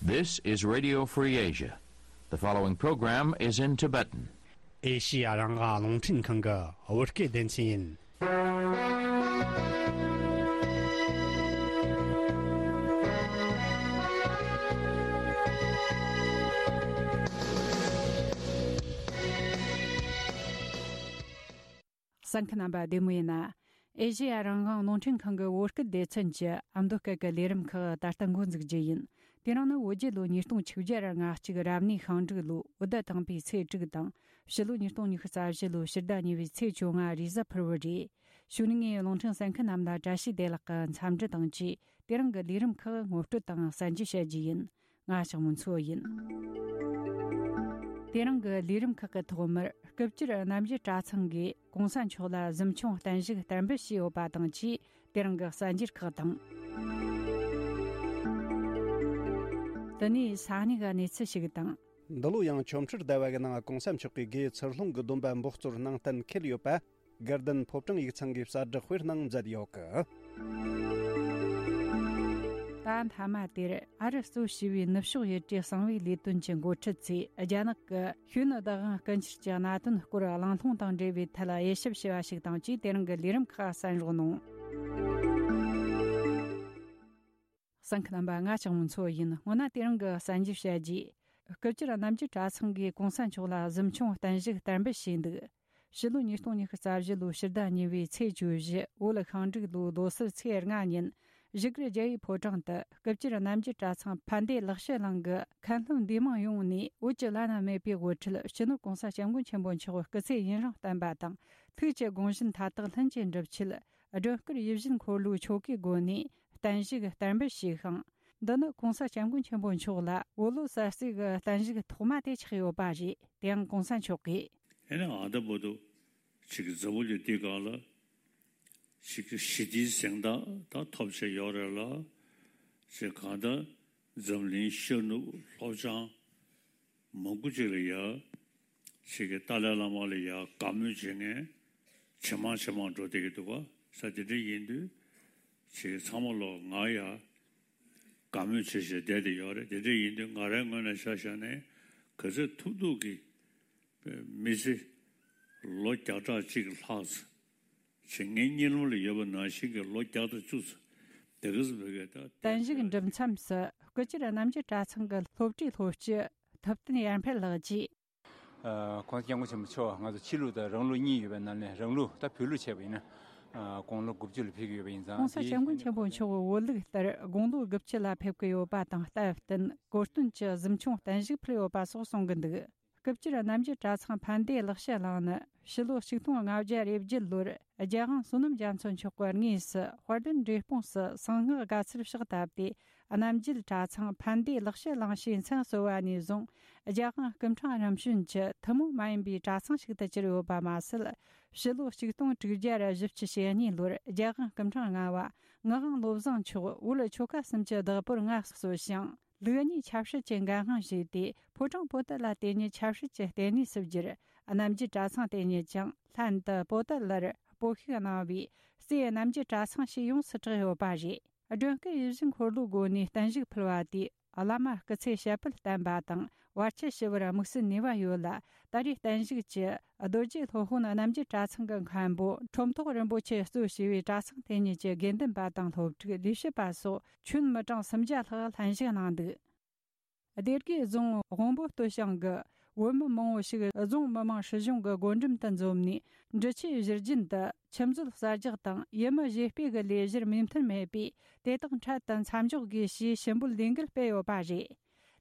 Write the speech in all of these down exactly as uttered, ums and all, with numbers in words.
This is Radio Free Asia. The following program is in Tibetan. ཨེ་ཤི་ཡ་རང་དབང་རླུང་འཕྲིན་ཁང་གི་བོད་སྐད་སྡེ་ཚན་ཡིན། གསན་མཁན་རྣམ་པ་བདེ་མོ་ཡིན་ན། ཨེ་ཤེ་ཡ་རང་དབང་རླུང་འཕྲིན་ཁང་གི་བོད་སྐད་སྡེ་ཚན་གྱི་ཨ་མདོ་སྐད་ཀྱི་ལས་རིམ་ཁག་ད་ལྟ་འགོ་འཛུགས་རྒྱུ་ཡིན། དེ་རིང་ནི་བོད་རྒྱལ་ལོ་ཉིས་སྟོང་ཆིག་བརྒྱ་ང་གཅིག་རབ་གནས་ཤིང་འབྲུག་ལོ་བོད་ཟླ་དང་པོའི་ཚེས་དྲུག་དང་། ཕྱི་ལོ་ཉིས་སྟོང་ཉི་ཤུ་རྩ་བཞི་ལོའི་ཕྱི་ཟླ་གཉིས་པའི་ཚེས་བཅོ་ལྔ་རེས་གཟའ་ཕུར་བུ་རེད། གཞུག་ནས་ངས་རླུང་འཕྲིན་གསན་མཁན་རྣམས་ལ་བཀྲ་ཤིས་བདེ་ལེགས་ཀྱི་འཚམས་འདྲི་དང་བཅས། དེ་རིང་གི་ལས་རིམ་ཁག་ངོ་སྤྲོད་དང་གསན་རྒྱུ་བྱ་རྒྱུ་ཡིན། ང་ཞག་མོ་མཚོ་ཡིན། དེ་རིང་གི་ལས་རིམ་ཁག་གི་ཐོག་མར་སྐུ་བཅར་རྣམ་རྒྱལ་གྲྭ་ཚང་གིས་གོང་ས་མཆོག་ལ་གཟིམ་ཆུང་བརྟན་བཞུགས་བསྟར་འབུལ་ཞུས་ཡོད་པ་དང་བཅས། དེ་རིང་གི་གསར་འགྱུར་ཁག་དང་། དེ་ནས་ས་གནས་ཀྱི་གནས་ཚུལ་ཞིག་དང་། འདི་ལོ་ཡང་ཆོ་འཕྲུལ་ཟླ་བ་གི་ནང་གོང་ས་མཆོག་གིས་དགེ་ཚུལ་སློང་གི་སྡོམ་པ་འབོགས་ཚོར་གནང་གཏན་འཁེལ་ཡོད་པ། དགའ་ལྡན་ཕོ་བྲང་ཡིག་ཚང་གིས་གསལ་བསྒྲགས་དཔེར་གནང་མཛད་ཡོད་གི། ད་མཐའ་མ་དེར་ཨ་རི་གཙོས་བྱས་པའི་ནུབ་ཕྱོགས་ཡུལ་གྲུའི་གསང་བའི་ལས་དོན་གྱི་འགོ་ཁྲིད་ཚོས་རྒྱ་ནག་གི་ཤུལ་ནུ་བདག་དབང་རྐུ་འཁྱེར་གྱི་གནད་དོན་སྐོར་གླེང་སློང་དང་འབྲེལ་བའི་ཐད་དབྱེ་ཞིབ་བྱས་པ་ཞིག་དང་བཅས། དེ་རིང་གི་ལས་རིམ་ཁག་གསན་རོགས་གནང་། གསན་མཁན་རྣམ་པ། ང་ཞག་མོ་མཚོ་ཡིན། སྔོན་ན་དེ་རིང་གི་གསར་འགྱུར་བཤད་རྗེས། སྐུ་བཅར་རྣམ་རྒྱལ་གྲྭ་ཚང་གིས་གོང་ས་མཆོག་ལ་གཟིམ་ཆུང་བརྟན་བཞུགས་བསྟར་འབུལ་ཞུས་འདུག། ཕྱི་ལོ་ཉིས་སྟོང་ཉི་ཤུ་རྩ་བཞི་ལོའི་ཕྱི་ཟླ་གཉིས་པའི་ཚེས་བཅུ་བཞི་བོད་ཤིང་འབྲུག་ལོའི་ལོ་གསར་ཚེས་ལྔ་ཉིན། བཞུགས་སྒར་རྒྱལ་བའི་ཕོ་བྲང་དུ་སྐུ་བཅར་རྣམ་རྒྱལ་གྲྭ་ཚང་ཕན་བདེ་ལེགས་བཤད་གླིང་གི་མཁན་སློབ་འདུས་མང་ཡོངས་ནས་བོད་ཀྱི་བླ་ན་མེད་པའི་དབུ་ཁྲིད་སྤྱི་ནོར་གོང་ས་སྐྱབས་མགོན་ཆེན་པོ་མཆོག་སྐུ་ཚེ་ཡུན་རིང་བརྟན་པ་དང་། ཐུགས་ཀྱི་དགོངས་གཞི་མཐའ་དག་ལྷུན་གྱིས་འགྲུབ་ཆེད། སྒྲོལ་དཀར་ཡིད་བཞིན་འཁོར་ལོའི་ཆོ་གའི་སྒོ་ནས་བརྟན་བཞུགས་བསྟར་འབུལ་ཞུས་ཤིང་། འདི་ནི་གོང་ས་སྐྱབས་མགོན་ཆེན་པོ་མཆོག་ལ་བོད་ལོ་གསར་ཚེས་ཀྱི་བརྟན་བཞུགས་ཐོག་མ་དེ་ཆགས་ཡོད་པ་རེད། དེའང་གོང་ས་མཆོག་གིས། ཨེ་ནི་ཨ་ད་བོ་དུ་ཅིག་གི་འཛམ་བུ་གླིང་འདི་སྒང་ལ་ཅིག་གི་ཞི་བདེའི་གཟེངས་རྟགས་ད་ཐོབ་བྱས་ཡོད་རེད་ལ། ཅིག་གང་ལྟར་འཛམ་གླིང་ཤར་ནུབ་ལྷོ་བྱང་མང་པོ་ཅིག་ལ་ཡ། ཅིག་གི་ཏཱ་ལའི་བླ་མ་ལ་ཡ་དགའ་མོས་བྱེད་མཁན་ཇེ་མང་ཇེ་མང་འགྲོ་བསྡད་ཀྱི་འདུག་ག། ས་དེ་འདྲ་ཡིན་དུས་ཅིག་ཚང་མ་ལོ་ང་ཡ་དགའ་མོས་བྱེད་བྱེད་བསྡད་དེ་ཡོད་རེད། དེ་འདྲ་ཡིན་དུས་ང་རའི་ངོས་ནས་ཆ་བཞག་ནས་ག་ཚོད་ཐུབ་ཐུབ་ཀྱི་མི་ཚེ་ལོ་བརྒྱ་ཕྲག་གཅིག་ལྷག་ཙམ་ཅིག་ངའི་གཉིད་ལམ་ལ་ཡོད་པ་ནང་བཞིན་གྱི་ལོ་བརྒྱ་དང་བཅུ་ཙམ་དེ་ག་ཙམ་བོད་སྐད་ད། བརྟན་བཞུགས་འགྲུབ་མཚམས་སུ་སྐུ་བཅར་རྣམ་རྒྱལ་གྲྭ་ཚང་གི་སློབ་གྲྭའི་སློབ་སྤྱི་ཐུབ་བསྟན་ཡར་འཕེལ་ལགས་ཀྱིས། ཨ། གོང་ས་སྐྱབས་མགོན་ཆེན་པོ་མཆོག་ང་ཚོ་ཕྱི་ལུགས་དང་རང་ལུགས་གཉིས་ཡོད་པའི་ནང་ནས་རང་ལུགས་ད་བོད་ལུགས་བྱས་པ་ཡིན་ན། ཨ། དགུང་ལོ་དགུ་བཅུ་ལ་ཕེབས་ཀྱི་ཡོད་པ་ཡིན་ཙང་། གོང་ས་སྐྱབས་མགོན་ཆེན་པོ་མཆོག་བོད་ལུགས་ལྟར་དགུང་ལོ་དགུ་བཅུ་ལ་ཕེབས་ཀྱི་ཡོད་པ་དང་སྟབས་བསྟུན་གོ་སྟོན་གྱི་གཟིམ་ཆུང་བརྟན་བཞུགས་ཕུལ་ཡོད་པ་སོགས་གསུང་གི་འདུག། སྐུ་བཅར་རྣམ་རྒྱལ་གྲྭ་ཚང་ཕན་བདེ་ལེགས་བཤད་གླིང་ནི་ཕྱི་ལོ་ཆིག་སྟོང་ལྔ་བརྒྱ་རེ་བརྒྱད་ལོར་རྒྱལ་དབང་བསོད་ནམས་རྒྱ་མཚོ་མཆོག་གི་དངོས་སུ་དཔལ་ལྡན་འབྲས་སྤུངས་སུ་གསང་སྔགས་དགའ་ཚལ་ཕྱག་བཏབ་སྟེ། རྣམ་རྒྱལ་གྲྭ་ཚང་ཕན་བདེ་ལེགས་བཤད་གླིང་ཞེས་མཚན་གསོལ་བ་ནས་བཟུང་རྒྱལ་དབང་སྐུ་ཕྲེང་རིམ་བྱོན་གྱི་ཐུན་མོང་མ་ཡིན་པའི་གྲྭ་ཚང་ཞིག་ཏུ་གྱུར་ཡོད་པ་མ་ཟད། ཕྱི་ལོ་ཆིག་སྟོང་དྲུག་བརྒྱ་བཞི་བཅུ་ཞེ་གཉིས་ལོར་རྒྱལ་དབང་སྐུ་ཕྲེང་ལྔ་པ་ངག་དབང་བློ་བཟང་མཆོག་བོད་ཆོལ་ཁ་གསུམ་གྱི་བདག་པོར་མངའ་གསོལ་ཞིང་། ལུགས་གཉིས་ཆབ་སྲིད་ཀྱི་འགན་དབང་ཞུས་ཏེ། ཕོ་བྲང་པོ་ཏཱ་ལ་དེ་ཉིད་ཆབ་སྲིད་ཀྱི་ལྟེ་གནས་སུ་བསྒྱུར། རྣམ་རྒྱལ་གྲྭ་ཚང་དེ་ཉིད་ཀྱང་ལྷན་དུ་པོ་ཏཱ་ལར་སྤོ་ཤུགས་གནང་བས། རྩེ་རྣམ་རྒྱལ་གྲྭ་ཚང་ཞེས་ཡོངས་སུ་གྲགས་ཡོད་པ་རེད། སྒྲོལ་དཀར་ཡིད་བཞིན་འཁོར་ལོའི་སྒོ་ནས་བརྟན་བཞུགས་ཕུལ་བ་དེས། བླ་མ་སྐུ་ཚེ་ཞབས་པད་བརྟན་པ་དང་། བར་ཆད་ཞི་བར་དམིགས་བསལ་ནུས་པ་ཡོད་ལ། ད་རེས་བརྟན་བཞུགས་ཀྱི་རྡོ་རྗེ་སློབ་དཔོན་རྣམ་རྒྱལ་གྲྭ་ཚང་གི་མཁན་པོ་ཁྲོམ་ཐོག་རིན་པོ་ཆེ་གཙོས་བྱས་པའི་གྲྭ་ཚང་དེ་ཉིད་ཀྱི་དགེ་འདུན་པ་དང་སློབ་ཕྲུག་ལས་བྱེད་པ་སོགས་ཁྱོན་མི་གྲངས་སུམ་བརྒྱ་ལྷག་ལྷན་ཞུགས་གནང་འདུག། སྡེ་དགེ་རྫོང་དབོན་པོ་སྟོད་ཞང་གི་བོད་མི་མང་བོ་ཞིག་རྫོང་མི་དམངས་སྲིད་གཞུང་གི་སྒོ་འགྲམ་དུ་འཛོམས་ནས། འབྲི་ཆུའི་བཞུར་རྒྱུན་དུ་ཆུ་མཛོད་གསར་རྒྱག་དང་ཡུལ་མི་གཞས་སྤེལ་གྱི་ལས་གཞིར་མོས་མཐུན་མེད་པས། དེ་དག་འཕྲལ་དུ་མཚམས་འཇོག་དགོས་ཞེས་ཞུ་འབོད་ལས་འགུལ་སྤེལ་ཡོད་པ་རེད།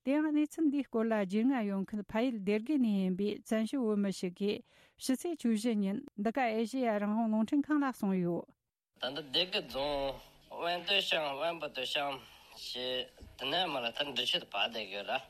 དེ་ཡང་གནས་ཚུལ་འདིའི་སྐོར་ལ་རྒྱུས་མངའ་ཡོད་མཁན་ཕ་ཡུལ་སྡེ་དགེ་ནས་ཡིན་པའི་བཙན་བྱོལ་བོད་མི་ཞིག་གིས་ཕྱི་ཚེས་བཅུ་བཞི་ཉིན་འདི་ག་ཨེ་ཤེ་ཡ་རང་དབང་རླུང་འཕྲིན་ཁང་ལ་གསུངས་ཡོད། ད་ལྟ་སྡེ་དགེ་རྫོང་དབོན་སྟོད་ཤང་དབོན་པོ་སྟོད་ཤང་ཞེས་དེ་ནས་མར་ད་འབྲི་ཆུ་དུ་བར་བསྡད་ཡོད་ར།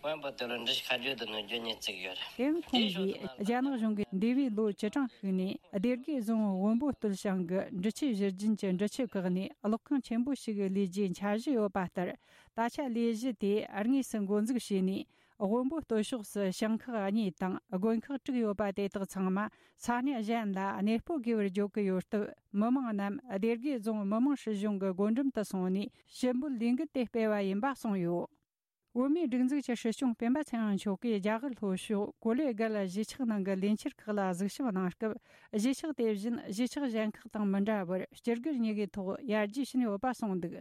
དབོན་པོ་སྟོད་ལ་འབྲི་ཆུ་ཁ་རྒྱུད་དུ་ནུབ་རྒྱུད་གཉིས་བརྩིགས་ཡོད་ར། དེའང་ཁོང་གིས་རྒྱ་ནག་གཞུང་གིས་འདས་པའི་ལོ་བཅུ་གྲངས་ཤིག་ནས་སྡེ་དགེ་རྫོང་དབོན་པོ་སྟོད་ཤང་གི་འབྲི་ཆུའི་བཞུར་རྒྱུན་གྱི་འབྲི་ཆུ་བཀག་ནས་གློག་ཁང་ཆེན་པོ་ཞིག་ལས་རྒྱུའི་འཆར་གཞི་ཡོད་པ་ལྟར། ད་ཆ་ལས་གཞི་དེ་དངོས་སུ་འགོ་འཛུགས་བྱས་ནས། དབོན་པོ་སྟོད་ཕྱོགས་སུ་ཞིང་ཁག་གཉིས་དང་དགོན་ཁག་དྲུག་ཡོད་པ་དེ་དག་ཚང་མ་ས་གནས་གཞན་ལ་གནས་སྤོ་དགོས་པར་བརྗོད་ཀྱི་ཡོད་སྟབས། མི་མང་རྣམས་སྡེ་དགེ་རྫོང་མི་དམངས་སྲིད་གཞུང་གི་སྒོ་འགྲམ་དུ་སོང་ནས་ཞུ་འབོད་ལས་འགུལ་དེ་སྤེལ་བ་ཡིན་པ་གསུངས་ཡོད། བོད་མིའི་སྒྲིག་འཛུགས་ཀྱི་སྲིད་སྐྱོང་སྤེན་པ་ཚེ་རིང་མཆོག་གིས་རྒྱ་གར་ལྷོ་ཕྱོགས་ཀོ་ལེ་གལ་གཞིས་ཆགས་ནང་གི་ལས་འཆར་ཁག་ལ་གཟིགས་ཞིབ་གནང་སྐབས། གཞིས་ཆགས་དེ་བཞིན་གཞིས་ཆགས་གཞན་ཁག་དང་མི་འདྲ་བར་སྤྱི་སྒེར་གཉིས་ཀའི་ཐོག་ཡར་རྒྱས་ཕྱིན་ཡོད་པ་གསུངས་འདུག་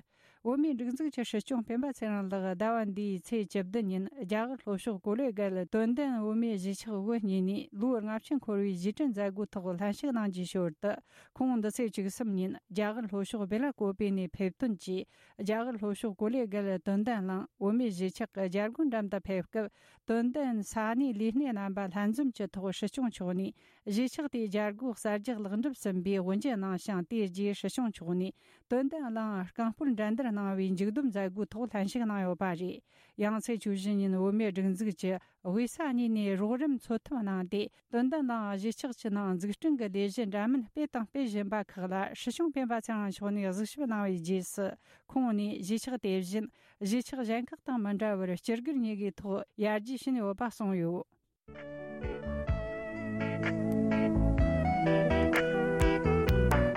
བོད་མིའི་སྒྲིག་འཛུགས་ཀྱི་སྲིད་སྐྱོང་སྤེན་པ་ཚེ་རིང་ལགས་ཟླ་བ་འདིའི་ཚེས་བཅུ་བདུན་ཉིན་རྒྱ་གར་ལྷོ་ཕྱོགས་ཀོ་ལེ་གལ་དོན་ལྡན་བོད་མིའི་གཞིས་ཆགས་དབུ་བརྙེས་ནས་ལོ་ལྔ་བཅུ་འཁོར་བའི་གཞིས་བྲན་མཛད་སྒོའི་ཐོག་ལྷན་ཞུགས་གནང་རྒྱུའི་ཞོར་དུ། ཁོང་འདི་ཚེས་བཅུ་གསུམ་ཉིན་རྒྱ་གར་ལྷོ་ཕྱོགས་བེ་ལ་ཀོ་པེ་ནས་ཕེབས་ཐོན་གྱིས། རྒྱ་གར་ལྷོ་ཕྱོགས་ཀོ་ལེ་གལ་དོན་ལྡན་གླིང་བོད་མིའི་གཞིས་ཆགས་ཀྱི་རྒྱལ་སྒོའི་འགྲམ་དུ་ཕེབས་སྐབས། དོན་ལྡན་ས་གནས་ལས་སྣེ་རྣམ་པ་ལྷན་འཛོམས་ཀྱི་ཐོག་སྲིད་སྐྱོང་མཆོག་ནས་གཞིས་ཆགས་དེའི་རྒྱལ་སྒོ་གསར་རྒྱག་ལེགས་འགྲུབ་ཟིན་པའི་དབུ་འབྱེད་གནང་ཞིང་། དེའི་རྗེས་སྲིད་སྐྱོང་མཆོག་ནས་དོན་ལྡན་གླིང་རྐང་སྤོལ་འགྲན་བསྡུར་གནང་བའི་མཇུག་བསྡོམས་མཛད་སྒོའི་ཐོག་ལྷན་ཞུགས་གནང་ཡོད་པ་རེད། ཡང་ཚེས་བཅུ་བཞི་ཉིན་བོད་མིའི་སྒྲིག་འཛུགས་ཀྱི་དབུས་ས་གཉིས་ནས་རོགས་རམ་འཚོལ་ཐབས་གནང་སྟེ། དོན་ལྡན་གླིང་གཞིས་ཆགས་ཀྱི་ནང་འཛུགས་སྐྲུན་གྱི་ལས་གཞི་འདྲ་མིན་སྤེལ་དང་སྤེལ་བཞིན་པ་ཁག་ལ་སྲིད་སྐྱོང་སྤེན་པ་ཚེ་རིང་མཆོག་ནས་གཟིགས་ཞིབ་གནང་བའི་རྗེས་སུ། ཁོང་ནས་གཞིས་ཆགས་དེ་བཞིན་གཞིས་ཆགས་གཞན་ཁག་དང་མི་འདྲ་བར་སྤྱི་སྒེར་གཉིས་ཀའི་ཐོག་ཡར་རྒྱས་ཕྱིན་ཡོད་པ་གསུངས་ཡོད།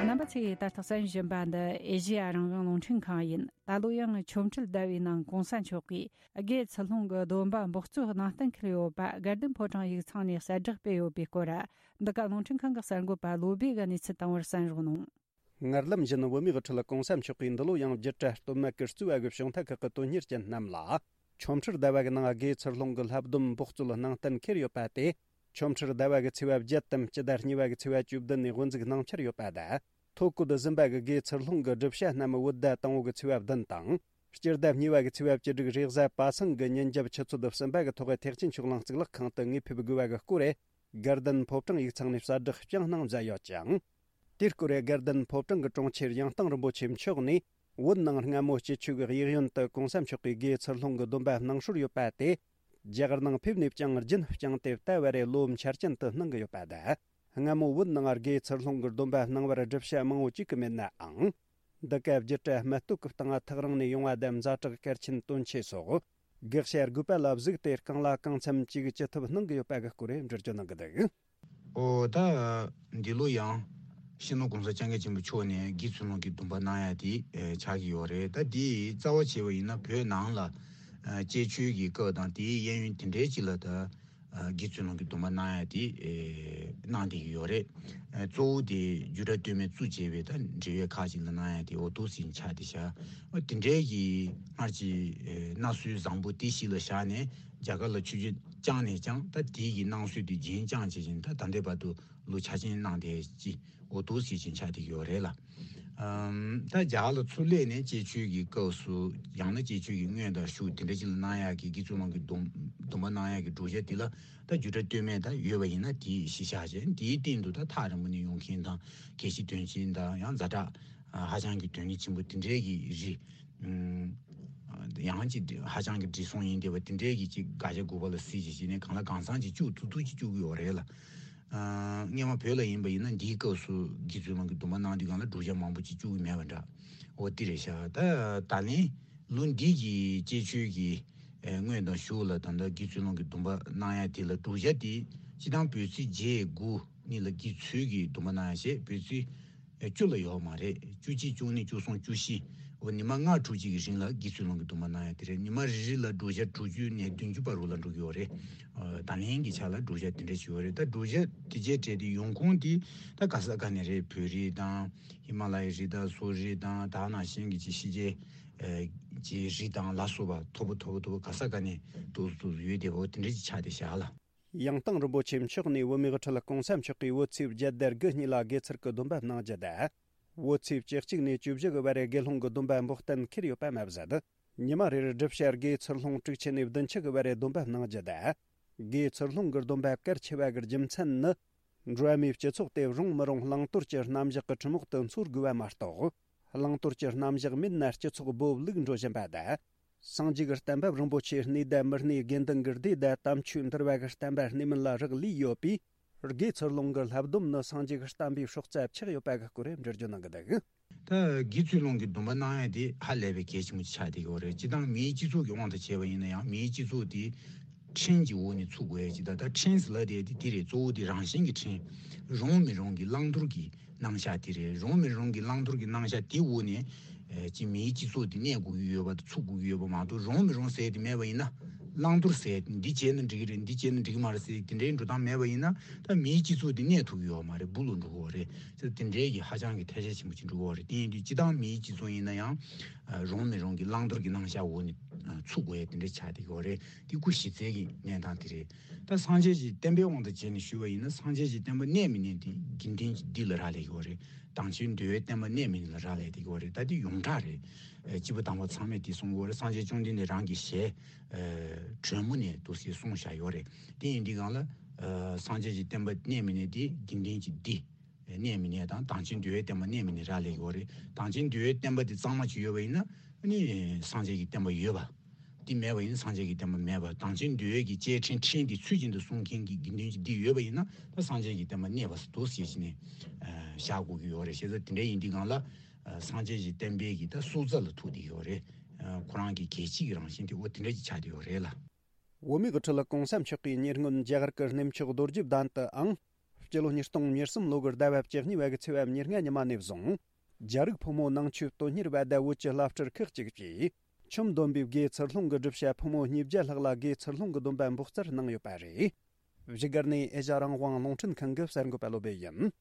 རྣམ་པ་ཚོས་ད་ལྟ་གསན་བཞིན་པ་འདི་ཨེ་ཤེ་ཡ་རང་དབང་རླུང་འཕྲིན་ཁང་ཡིན། ད་ལོ་ཡང་ཆོ་འཕྲུལ་ཟླ་བའི་ནང་གོང་ས་མཆོག་གིས་དགེ་ཚུལ་སློང་གི་སྡོམ་པ་འབོགས་ཚོད་གནང་གཏན་འཁེལ་ཡོད་པ་དགའ་ལྡན་ཕོ་བྲང་ཡིག་ཚང་ནས་གསལ་བསྒྲགས་སྤེལ་ཡོད་པའི་སྐོར། འདི་ག་རླུང་འཕྲིན་ཁང་གི་གསར་འགོད་པ་བློ་བྷེ་གིས་གནས་ཚུལ་བཏང་བར་གསན་རོགས་གནང་། སྔར་ལམ་བཞིན་བོད་མིའི་དབུ་ཁྲིད་གོང་ས་མཆོག་གིས་འདི་ལོ་ཡང་བརྒྱུད་གྲྭ་སྟོད་སྨད་ཀྱི་རྩིས་པ་གི་གཞུང་ཐག་ཁག་གི་དོན་གཉེར་ཅན་རྣམས་ལ་ཆོ་འཕྲུལ་ཟླ་བ་གི་ནང་དགེ་ཚུལ་སློང་གི་བསླབ་སྡོམ་འབོགས་ཚོད་གནང་གཏན་འཁེལ་ཡོད་པ་དེ། ཆོ་འཕྲུལ་ཟླ་བ་གི་ཚེས་པ་བརྒྱད་དམ་སྤྱི་ཟླ་གཉིས་པ་གི་ཚེས་པ་བཅུ་བདུན་ནས་དབུ་འཛུགས་གནང་འཆར་ཡོད་པ་དང་། ཐོ་བཀོད་ཟིན་པ་གི་དགེ་ཚུལ་སློང་གི་སྒྲུབ་བྱ་རྣམས་བོད་ཟླ་དང་པོ་གི་ཚེས་པ་བདུན་དང་། སྤྱི་ཟླ་གཉིས་པ་གི་ཚེས་པ་བཅུ་དྲུག་རེས་གཟའ་པ་སངས་ཀྱི་ཉིན་རྒྱབ་ཆུ་ཚོད་གསུམ་པ་གི་ཐོག་ཐེག་ཆེན་ཆོས་གླིང་གཙུག་ལག་ཁང་དུ་དངོས་ཕེབས་དགོས་པ་གི་སྐོར། དགའ་ལྡན་ཕོ་བྲང་ཡིག་ཚང་ནས་གསལ་བསྒྲགས་བསྐྱངས་གནང་མཛད་ཡོད་ཅིང་། དེའི་སྐོར་དགའ་ལྡན་ཕོ་བྲང་གི་དྲུང་ཆེ་གཡང་ཐང་རིན་པོ་ཆེ་མཆོག་ནས། བོད་ནང་སྔ་མོ་སྤྱི་ཆོས་ཀྱི་གཡས་གཡོན་དུ་གོང་ས་མཆོག་གིས་དགེ་ཚུལ་སློང་གི་སྡོམ་པ་གནང་སྲོལ་ཡོད་པ་དེ། རྒྱ་གར་ནང་ཕེབས་ནས་ཀྱང་རྒྱུན་བསྐྱངས་ཏེ་ད་བར་རེ་ལོ་འཆར་ཅན་དུ་གནང་གི་ཡོད་པ་དང་། སྔ་མོ་བོད་ནང་དགེ་ཚུལ་སློང་གི་སྡོམ་པ་གནང་བར་སྒྲུབ་བྱ་མང་བོ་བཅུག་གི་མེད་ནའང་། འདི་ག་བརྒྱུད་གྲྭ་སྨད་སྟོད་ཀྱི་སྟེང་ཐག་རིང་ནས་ཡོང་བ་དང་ཛ་དྲག་གལ་ཆེན་དོན་ཆེ་སོགས། དགག་བྱ་དགོས་པ་ལ་གཟིགས་ཏེ་རྐང་ལ་གང་འཚམ་ཅིག་ཅི་ཐུབ་གནང་གི་ཡོད་པ་གི་སྐོར་འགྲེལ་བརྗོད་གནང་གི་འདུག། ཨོ་ད། འདི་ལོ་ཡང་། སྤྱི་ནོར་༸གོང་ས་༸སྐྱབས་མགོན་ཆེན་པོ་མཆོག་ནས་དགེ་ཚུལ་སློང་གི་སྡོམ་པ་གནང་ཡ་དེ་ཨེ་ཆགས་ཀྱི་ཡོད་རེད། ད་དེ་རྩ་བ་བྱས་པ་ཡིན་ན་བོད་ནང་ལ་ཨ་བཅས་ཆོས་ཀྱི་སྐབས་དང་དེའི་གཡས་གཡོན་དེ་འདྲའི་ཅིག་ལ་ད་ཨ་དགེ་ཚུལ་སློང་གི་སྡོམ་པ་གནང་ཡ་དེ་ཨེ་གནང་བསྡད་ཀྱི་ཡོད་རེད། ཨ་གཙོ་བོ་དེ་རྒྱུད་གྲྭ་སྟོད་སྨད་བཙུགས་བྱས་པའི་ད་འབྲེལ་ཡོད་ཁག་ཅིག་ལ་གནང་ཡ་དེ་འོ་ཐུག་ཟིན་ཆགས་བསྡད་ཤག། ཨ་དེ་འདྲའི་གི་སྔར་གྱི་ཨེ་གནའ་སྲོལ་བཟང་པོ་དེ་གཞི་ལ་བཞག་ནས་རྒྱ་གར་ལ་ཆོས་བརྒྱུད་བསྐྱངས་ནས་ཀྱང་ད་དེའི་གི་གནང་སྲོལ་དེ་རྒྱུན་བསྐྱངས་བྱེད་བཞིན་ད་ད་ལྟའི་བར་དུ་ལོ་ཆ་ཆེན་གནང་བསྡད་ཀྱི་འོ་ཐུག་ཟིན་ཆགས་བསྡད་ཀྱི་ཡོད་རེད་ལ། ཨམ་ད་རྒྱ་གར་ལ་ཚུར་སླེབས་ནས་བཅས་ཆོས་ཀྱི་སྐབས་སུ་ཡང་ན་བཅས་ཆོས་ཀྱི་དངོས་དང་ཤུགས་དེ་འདྲ་ཅིག་ལ་གནང་ཡག་གི་དགེ་ཚུལ་སློང་གི་སྡོམ་སྡོམ་པ་གནང་ཡག་གི་བགྲོ་གཞག་འདི་ལ་ད་རྒྱུད་གྲྭ་སྟོད་སྨད་ད་ཡོད་པ་ཡིན་ན་དེའི་གཞི་བཞག་བྱས་དེའི་སྟེང་དུ་ད་ཐག་རིང་པོ་ནས་ཡོང་མཁན་དང་གལ་ཆེ་དོན་ཆེན་དང་ཡང་ཛ་དྲག་ཧ་ཅང་གི་དོན་གཉེར་ཆེན་པོ་དེ་འདྲའི་གི་རིགས་ཡང་ཅིག་ཧ་ཅང་གི་བགྲེས་སོང་ཡིན་བསྡད་པ་དེ་འདྲའི་གི་ཅིག་དགག་བྱ་དགོས་པ་ལ་གཟིགས་བྱས་བྱས་ནས་གང་ལ་གང་འཚམ་ཅིག་བཅུག་ཐུབ་ཐུབ་ཅིག་བཅུག་གི་ཡོད་རེད་ལ། སྔོན་མ་བོད་ལ་ཡིན་པ་ཡིན་ན་འདིའི་སྐབས་སུ་དགེ་ཚུལ་སློང་གི་སྡོམ་པ་གནང་དུས་སྒང་ལ་བགྲོ་གཞག་མང་པོ་ཅིག་བཅུག་གི་མེད་པ་འདྲ། འོ་དེ་རེད་ཤག། ད་ད་ལན་ལོ་འདི་གི་བཅས་ཆོས་ཀྱི་དངོས་དང་ཤུགས་ལ་ད་ལྟ་དགེ་ཚུལ་སློང་གི་སྡོམ་པ་གནང་ཡ་དེ་ལ་བགྲོ་གཞག་དེ་སྤྱི་བཏང་བོད་ཚེས་བརྒྱད་དགུ་གཉིས་ལ་དགེ་ཚུལ་གྱི་སྡོམ་པ་གནང་ཡ་བྱས་བོད་ཚེས་བཅུ་ལ་ཡོད་མ་རེད། བཅུ་གཅིག་བཅུ་གཉིས་བཅུ་གསུམ་བཅུ་བཞི། འོ་ཉི་མ་ལྔ་དྲུག་ཅིག་གི་རིང་ལ་དགེ་ཚུལ་སློང་གི་སྡོམ་པ་གནང་ཡ་དེ་རེད། ཉི་མ་རེ་རེ་ལ་བགྲོ་གཞག་དྲུག་ཅུ་ནས་བདུན་ཅུ་བར་རུ་ལ་འགྲོ་གི་ཡོད་རེད། ད་ལན་གྱི་ཆ་ལ་བགྲོ་གཞག་དེ་འདྲ་ཞིག་ཡོད་རེད། ད་བགྲོ་གཞག་དེ་བྱས་བྲལ་ཏེ་ཡོང་ཁུངས་དེ་ད་ག་ས་ག་ནས་རེད། བོད་རིགས་དང་ཧི་མ་ལ་ཡའི་རིགས་དང་སོག་རིགས་དང་ད་ནང་བཞིན་གྱི་ཅིག་ཕྱི་རྒྱལ་གྱི་རིགས་དང་ལ་སོགས་པ་མཐོ་པོ་མཐོ་པོ་མཐོ་པོ་ག་ས་ག་ནས་ཏོག་ཙམ་ཡོད་བསྡད་པ་འོ་དེ་འདྲ་ཅིག་ཆགས་བསྡད་བཞག་ལ། ཡང་ཐང་རིན་པོ་ཆེ་མཆོག་ནས་བོད་མིའི་དབུ་ཁྲིད་གོང་ས་མཆོག་གིས་བོད་ཚེས་བརྒྱད་དང་དགུ་གཉིས་ལ་དགེ་ཚུལ་གྱི་སྡོམ་པ་གནང་རྒྱུ་དང་། བོད་ཚེས་བཅུ་གཅིག་ནས་བཅུ་བཞི་གི་བར་དགེ་སློང་གི་སྡོམ་པ་འབོག་གཏན་འཁེལ་ཡོད་པ་མ་ཟད། ཉི་མ་རེར་སྒྲུབ་བྱ་དགེ་ཚུལ་སློང་དྲུག་ཅུ་ནས་བདུན་ཅུ་གི་བར་སྡོམ་པ་གནང་རྒྱུ་དང་། དགེ་ཚུལ་སློང་གི་སྡོམ་པ་གལ་ཆེ་བ་གི་རྒྱུ་མཚན་ནི། འགྲོ་བ་མིའི་སྤྱི་ཚོགས་དེ་རུང་མི་རུང་བླང་དོར་གྱི་རྣམ་གཞག་གི་ཁྲིམས་འོག་ཏུ་འཚོ་དགོས་པ་མ་གཏོགས། བླང་དོར་གྱི་རྣམ་གཞག་མེད་ན་སྤྱི་ཚོགས་སྦོ་ལུག་འགྲོ་བཞིན་པ་དང་། སངས་རྒྱས་ཀྱི་བསྟན་པ་རིན་པོ་ཆེ་གནས་དང་མི་གནས། དགེ་འདུན་གྱི་སྡེ་དང་དམ་ཆོས་འདུལ་བ་གི་བསྟན་པ་གནས་མིན་ལ་རག་ལས་ཡོད་པས། དགེ་ཚུལ་སློང་གི་བསླབ་སྡོམ་ནི་སངས་རྒྱས་ཀྱི་བསྟན་པའི་སྲོག་རྩ་ཆགས་ཡོད་པ་གི་སྐོར་འགྲེལ་བརྗོད་གནང་གི་འདུག། ད་དགེ་ཚུལ་སློང་གི་སྡོམ་པ་གནང་ཡ་དེ་ཧ་ལས་པའི་གལ་ཆེན་པོ་ཆགས་བསྡད་ཀྱི་ཡོད་རེད། སྤྱིར་བཏང་མིའི་སྤྱི་ཚོགས་ཀྱི་དབང་དུ་བྱས་པ་ཡིན་ན་ཡང་མིའི་སྤྱི་ཚོགས་དེ་ཕྲན་གྱི་འོག་ནས་ཚུགས་དགོས་ཡ་ཅིག་དང་། ད་ཕྲན་ཟེར་ལབ་དེ་དེ་རེད། གཙོ་བོ་དེ་རང་བཞིན་གྱི་ཕྲན། རུང་མི་རུང་གི་བླང་དོར་གྱི་རྣམ་གཞག་དེ་རེད། རུང་མི་རུང་གི་བླང་དོར་གྱི་རྣམ་གཞག་དེའི་འོག་ནས་ ཨེ་ཅི་མིའི་སྤྱི་ཚོགས་དེ་གནས་དགོས་ཀྱི་ཡོད་པ་དང་ཚུགས་དགོས་ཀྱི་ཡོད་པ་མ་གཏོགས། རུང་མི་རུང་ཟེར་དེ་མེད་པ་ཡིན་ན། བླང་དོར་ཟེར་དེ་འདི་བྱས་ན་འགྲིག་གི་རེད། འདི་བྱས་ན་འགྲིག་གི་མ་རེད་ཟེར་དེ་འདྲའི་འགྲོ་སྟངས་མེད་པ་ཡིན་ན། ད་མིའི་སྤྱི་ཚོགས་དེ་གནས་ཐུབ་ཀྱི་ཡོད་མ་རེད། སྦུག་ལ་འགྲོ་གི་ཡོད་རེད་ཟེར། དེ་འདྲའི་གི་ཧ་ཅང་གི་ཐལ་ཆ་ཆེན་པོ་ཅིག་འགྲོ་གི་ཡོད་རེད། དེ་ཡིན་དུས་སྤྱི་བཏང་མིའི་སྤྱི་ཚོགས་ཡིན་ན་ཡང་། ཨ་རུང་མི་རུང་གི་བླང་དོར་གྱི་རྣམ་གཞག་འོག་ནས་ཨ་ཚུགས་དགོས་ཡ་དེ་འདྲ་ཆགས་བསྡད་ཀྱི་ཡོད་རེད། དེ་སྐུ་གཞི་རྩའི་གི་གནས་སྟངས་དེ་རེད། ད་སངས་རྒྱས་ཀྱི་བསྟན་པའི་དབང་དུ་བྱས་ནས་ཞུས་པ་ཡིན་ན། སངས་རྒྱས་ཀྱི་བསྟན་པ་གནས་མི་གནས་དེ་དགེ་འདུན་གྱི་སྡེ་ལ་རག་ལས་ཀྱི་ཡོད་རེད། དམ་ཅན་འདུལ་བའི་བསྟན་པ་གནས་མི་གནས་ལ་རག་ལས་བསྡད་ཀྱི་ཡོད་རེད། ད་དེ་ཡོངས་གྲགས་རེད། ཨེ་སྐྱེས་བུ་དམ་པ་ཚང་མས་དེ་གསུང་གི་ཡོད་རེད། སངས་རྒྱས་བཅོམ་ལྡན་འདས་རང་གི་ཞལ་ཨེ་དྲོན་མོ་ནས་འདུག་སེ་གསུངས་བཞག་ཡོད་རེད། དེ་ཡིན་དུས་སྒང་ལ་ཨེ་སངས་རྒྱས་ཀྱི་བསྟན་པ་གནས་མི་གནས་དེ་དགེ་འདུན་གྱི་སྡེ་གནས་མི་གནས་དང་། དམ་ཅན་འདུལ་བའི་བསྟན་པ་གནས་མི་གནས་རག་ལས་ཀྱི་ཡོད་རེད། དམ་ཅན་འདུལ་བའི་བསྟན་པ་དེ་གཙང་མ་ཅིག་ཡོད་པ་ཡིན་ན། ཨ་ནི་སངས་རྒྱས་ཀྱི་བསྟན་པ་ཡོད་པ། དེ་མེད་པ་ཡིན་ན་སངས་རྒྱས་ཀྱི་བསྟན་པ་མེད་པ། དམ་ཅན་འདུལ་བའི་གི་གཅེས་ཕྲེང་ཕྲེང་དེ་ཚུལ་བཞིན་དུ་སྲུང་མཁན་གྱི་དགེ་འདུན་གྱི་སྡེ་ཡོད་པ་ཡིན་ན། ད་སངས་རྒྱས་ཀྱི་བསྟན་པ་གནས་པ་ཟེར་འདུག་ཟེར་བྱས་ནས་ཨ་བཞག་དགོས་ཀྱི་ཡོད་རེད། བྱས་ཙང་དེ་འདྲ་ཡིན་དུས་སྒང་ལ་ཨ་སངས་རྒྱས་ཀྱི་བསྟན་པའི་གི་ད་སྲོག་རྩ་ལ་ཐུག་བསྡད་ཡོད་རེད། ཨ་ཁོ་རང་གི་གལ་ཆེའི་གི་རང་བཞིན་དེ་འོ་དེ་འདྲ་ཅིག་ཆགས་བསྡད་ཡོད་རེད་ལ། བོད་མིའི་ཁྲོད་ལ་གོང་ས་མཆོག་གི་ཉེ་སྔོན་རྒྱ་གར་གྱི་གནས་མཆོག་རྡོ་རྗེ་གདན་དུའང་སྤྱི་ལོ་ཉིས་སྟོང་ཉེར་གསུམ་ལོ་གི་ཟླ་བ་བཅུ་གཉིས་པ་གི་ཚེས་པ་ཉེར་ལྔ་ཉི་མ་ནས་བཟུང་། རྒྱ་རིགས་ཕོ་མོ་ནང་ཆོས་དོན་གཉེར་བ་དང་བོད་ཀྱི་བླ་སྤྲུལ་ཁག་ཅིག་གིས་ཆུ་འདོན་པའི་དགེ་ཚུལ་སློང་གི་སྒྲུབ་བྱ་ཕོ་མོ་ཉིས་བརྒྱ་ལྷག་ལ་དགེ་ཚུལ་སློང་གི་སྡོམ་པ་འབོགས་ཚར་གནང་ཡོད་པ་རེད། བཞུགས་སྒར་ནས་ཨེ་ཤ་རང་དབང་རླུང་འཕྲིན་ཁང་གི་གསར་འགོད་པ་བློ་བྷེ་ཡིན།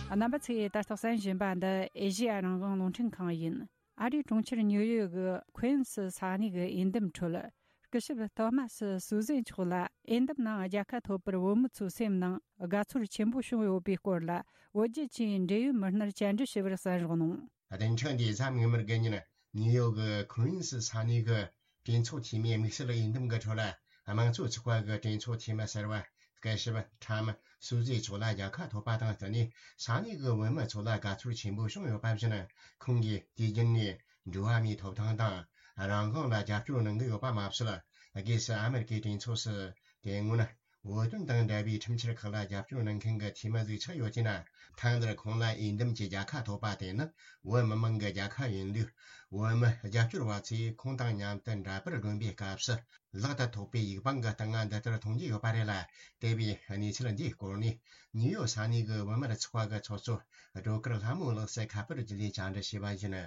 རྣམ་པ་ཚོས་ད་ལྟ་གསན་བཞིན་པ་འདི་ཨེ་ཤེ་ཡ་རང་དབང་རླུང་འཕྲིན་ཁང་ཡིན། ཨ་རིའི་གྲོང་ཁྱེར་ཉིའུ་ཡོག་གི་ཁུན་སི་ས་གནས་ཀྱི་འོས་འདེམས་ཁྲོད། སྐུ་ཞབས་ཐོ་མ་སི་སུ་ཟེ་མཆོག་ལ་འོས་འདེམས་ནང་རྒྱལ་ཁ་ཐོབ་པར་བོད་མི་ཚོའི་སེམས་ནང་དགའ་ཚོར་ཆེན་པོ་བྱུང་ཡོད་པའི་སྐོར་ལ། བོད་བརྒྱུད་ཆེད་འབྲེལ་ཡོད་མི་སྣར་བཅར་འདྲི་ཞུས་པར་གསན་རོགས་གནང་། བདུན་ཕྲག་འདིའི་གཟའ་མིག་དམར་གྱི་ཉིན། ནིའུ་ཡོག་གི་ཁུན་སི་ས་གནས་ཀྱི་གྲོས་ཚོགས་འཐུས་མིའི་དམིགས་བསལ་འོས་འདེམས་ཀྱི་ཁྲོད་ལ། དམངས་གཙོ་ཚོགས་པ་གི་གྲོས་ཚོགས་འཐུས་མི་གསར་པ་སྐུ་ཞབས་ཁྲམ་སུ་ཛི་མཆོག་ལ་རྒྱལ་ཁ་ཐོབ་པ་དང་བསྟུན་ནས། ས་གནས་ཀྱི་བོད་མི་ཚོ་ལ་དགའ་ཚོར་ཆེན་པོ་བྱུང་ཡོད་པ་བཞིན། ཁོང་གིས་དུས་རྒྱུན་ནས་འགྲོ་བ་མིའི་ཐོབ་ཐང་དང་རང་དབང་ལ་རྒྱབ་སྐྱོར་གནང་གི་ཡོད་པ་མ་ཟད། སྒོས་སུ་ཨ་མེ་རི་ཀའི་གྲོས་ཚོགས་སུ་དེ་སྔོན་བོད་དོན་དང་འབྲེལ་བའི་ཁྲིམས་འཆར་ཁག་ལ་རྒྱབ་སྐྱོར་གནང་མཁན་གྱི་འཐུས་མི་ཟིག་ཆགས་ཡོད་ཅེ་ན། ཐེངས་འདིར་ཁོང་ལ་འོས་འདེམས་ཀྱི་རྒྱལ་ཁ་ཐོབ་པ་དེ་ནི་བོད་མི་མང་གི་རྒྱལ་ཁ་ཡིན་ལུགས། བོད་མི་རྒྱབ་སྐྱོར་བ་ཚོས་ཁོང་དང་མཉམ་དུ་འདྲ་པར་སྒྲོན་པའི་སྐབས་སུ། ལག་ཏུ་ཐོགས་པའི་ཡིག་པང་གི་སྟེང་ང་འདི་ལྟར་མཐོང་རྒྱུ་ཡོད་པ་རེད་ལ། དེ་བས་གནས་ཚུལ་འདིའི་སྐོར་ནས་ནིའུ་ཡོག་ས་གནས་ཀྱི་བོད་མིའི་ཚོགས་པ་གི་ཚོགས་གཙོ་སྒྲོལ་དཀར་ལྷ་མོ་ལགས་སུ་ཁ་པར་བརྒྱུད་ནས་བཅར་འདྲི་བྱས་པ་ཡིན།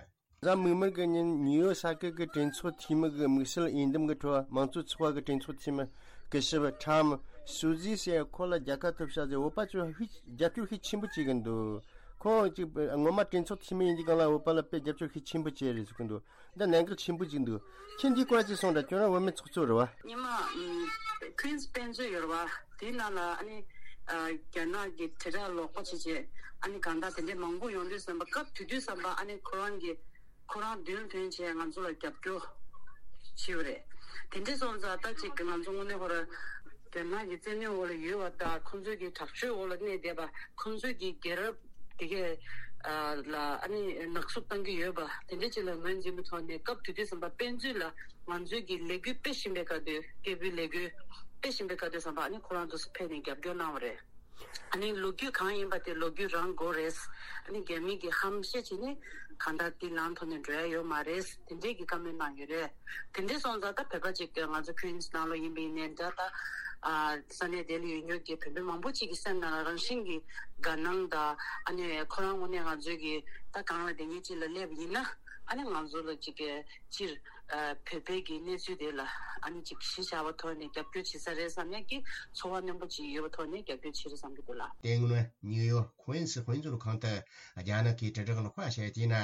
གཟའ་མིག་དམར་གྱི་ཉིན་ནིའུ་ཡོག་ས་ཁུལ་གྱི་གྲོས་ཚོགས་འཐུས་མི་གི་དམིགས་བསལ་འོས་འདེམས་ཀྱི་ཁྲོད། དམངས་གཙོ་ཚོགས་པ་གི་གྲོས་ཚོགས་འཐུས་མི་སྐུ་ཞབས་ཁྲམ་སུ་ཛི་ཟེར་ཁོ་ལ་རྒྱལ་ཁ་ཐོབ་ཤག་ཟེར། བོད་པ་ཚོས་ཧིག་རྒྱབ་སྐྱོར་ཤུགས་ཆེན་པོ་བྱེད་ཀྱི་འདུག་ཁོང་གཅིག་ངོ་མ་གྲོས་ཚོགས་འཐུས་མི་ཡིན་དུས་སྒང་ལ་བོད་པ་ལ་དཔེ་རྒྱབ་སྐྱོར་ཤུགས་ཆེན་པོ་བྱས་རེད་ཟེར་གྱི་འདུག་འདི་གནད་འགག་ཆེན་པོ་ཅིག་འདུག་ཁྱེད་འདིའི་སྐོར་ཅིག་གསུངས་དང་། ཁྱོད་རང་བོད་མི་ཚོགས་གཙོ་རེད་བ། ཉི་མ། ཨམ། ཁུན་སི་དཔེ་མཛོད་ཡོད་རེད་བ། དེའི་ནང་ལ་ཨ་ནི། ཨ། རྒྱ་ནག་གི་དྲིལ་བསྒྲགས་ལོག་པ་བྱེད་བྱེད་ཨ་ནི་གང་ལྟར་དེ་འདྲའི་མང་པོ་ཡོང་དུས་ཙམ་པ། སྐབས་དེ་དུས་ཙམ་པ་ཨ་ནི་ཁོ་རང་གི་ཁོ་རང་མདུན་ཐོན་བྱས་ང་ཚོ་ལ་རྒྱབ་སྐྱོར་བྱས་པ་རེད། དེ་འདྲ་སོང་ཙང་ད་ཅིག་ང་ཚོ་དངོས་གནས་ཁོ་རང་རྒྱ་ནག་གི་བཙན་གནོན་འོག་ལ་ཡོད་པ་དང་། ཁོང་ཚོའི་གི་དྲག་སྤྱོད་འོག་ལ་གནས་བསྡད་པ། ཁོང་ཚོའི་གི་རྒྱལ་རབས་དེ་གས་ལ་ཨ་ནི་ནག་བསུབ་བཏང་གི་ཡོད་པ་དེ་འདྲ་ཅིག་ལ་ངོས་འཛིན་པའི་ཐོག་ནས། སྐབས་དེ་དུས་ཙམ་པ་དཔེ་མཛོད་ལ་ང་ཚོའི་གི་ལས་འགུལ་སྤེལ་བཞིན་པའི་སྐབས་དུས། སྐད་འབོད་ལས་འགུལ་སྤེལ་བཞིན་པའི་སྐབས་དུས་ཙམ་པ་ཨ་ནི་ཁོ་རང་ཚོ་ཕེབས་ནས་རྒྱབ་སྐྱོར་གནང་བ་རེད། ཨ་ནི་ལོ་རྒྱུས་གང་ཡིན་པ་དེ་ལོ་རྒྱུས་རང་དགོས་རེད། ཨ་ནི་རྒྱ་མི་གིས་ཧམ་བཤད་བྱས་ནས་གང་ལྟར་དེ་ལམ་ཐོག་ནས་འགྲོ་ཡ་ཡོད་མ་རེད། དེ་འདྲས་ཀྱི་བཀའ་མོལ་གནང་ཡོད་རེད། དེ་འདྲས་སོང་ཙང་ད་བོད་པ་ཅིག་ང་ཚོ་ཁུན་སི་ནང་ལོགས་ཡིན་པ་ཡིན་ནའི་འདྲ། ད་ཨ་ས་གནས་དེ་ལ་ཡོད་མཁན་གྱི་བོད་པ་མང་པོ་ཅིག་གི་སེམས་ནང་ལ་རང་བཞིན་གྱི་དགའ་སྣང་དང་། ཨ་ནི་ཁོ་རང་ངོས་ནས་ང་ཚོའི་གི་ད་གང་ལ་བསྡད་མཁན་ཅིག་ལ་སླེབས་ཡིན་ན། ཨ་ནི་ང་ཚོ་ལ་ཅིག་གི་སྤྱིར་ཨ་བོད་པའི་གི་གནས་ཚུལ་དེ་ལ་ཨ་ནི་ཅིག་གཞི་བཞག་པའི་ཐོག་ནས་རྒྱབ་སྐྱོར་བྱེད་ས་རེད་བསམ་ཡག་གི་ཚོར་བ་རྣོན་པོ་ཅིག་ཡོད་པའི་ཐོག་ནས་རྒྱབ་སྐྱོར་བྱེད་རེད་བསམ་གྱི་འདུག་ལགས། དེ་སྔོན་ནིའུ་ཡོག་ཁུན་སི་དཔེ་མཛོད་ཁང་དུ་རྒྱ་ནག་གི་དྲིལ་བསྒྲགས་ལོག་པ་བཤད་དུས་ན།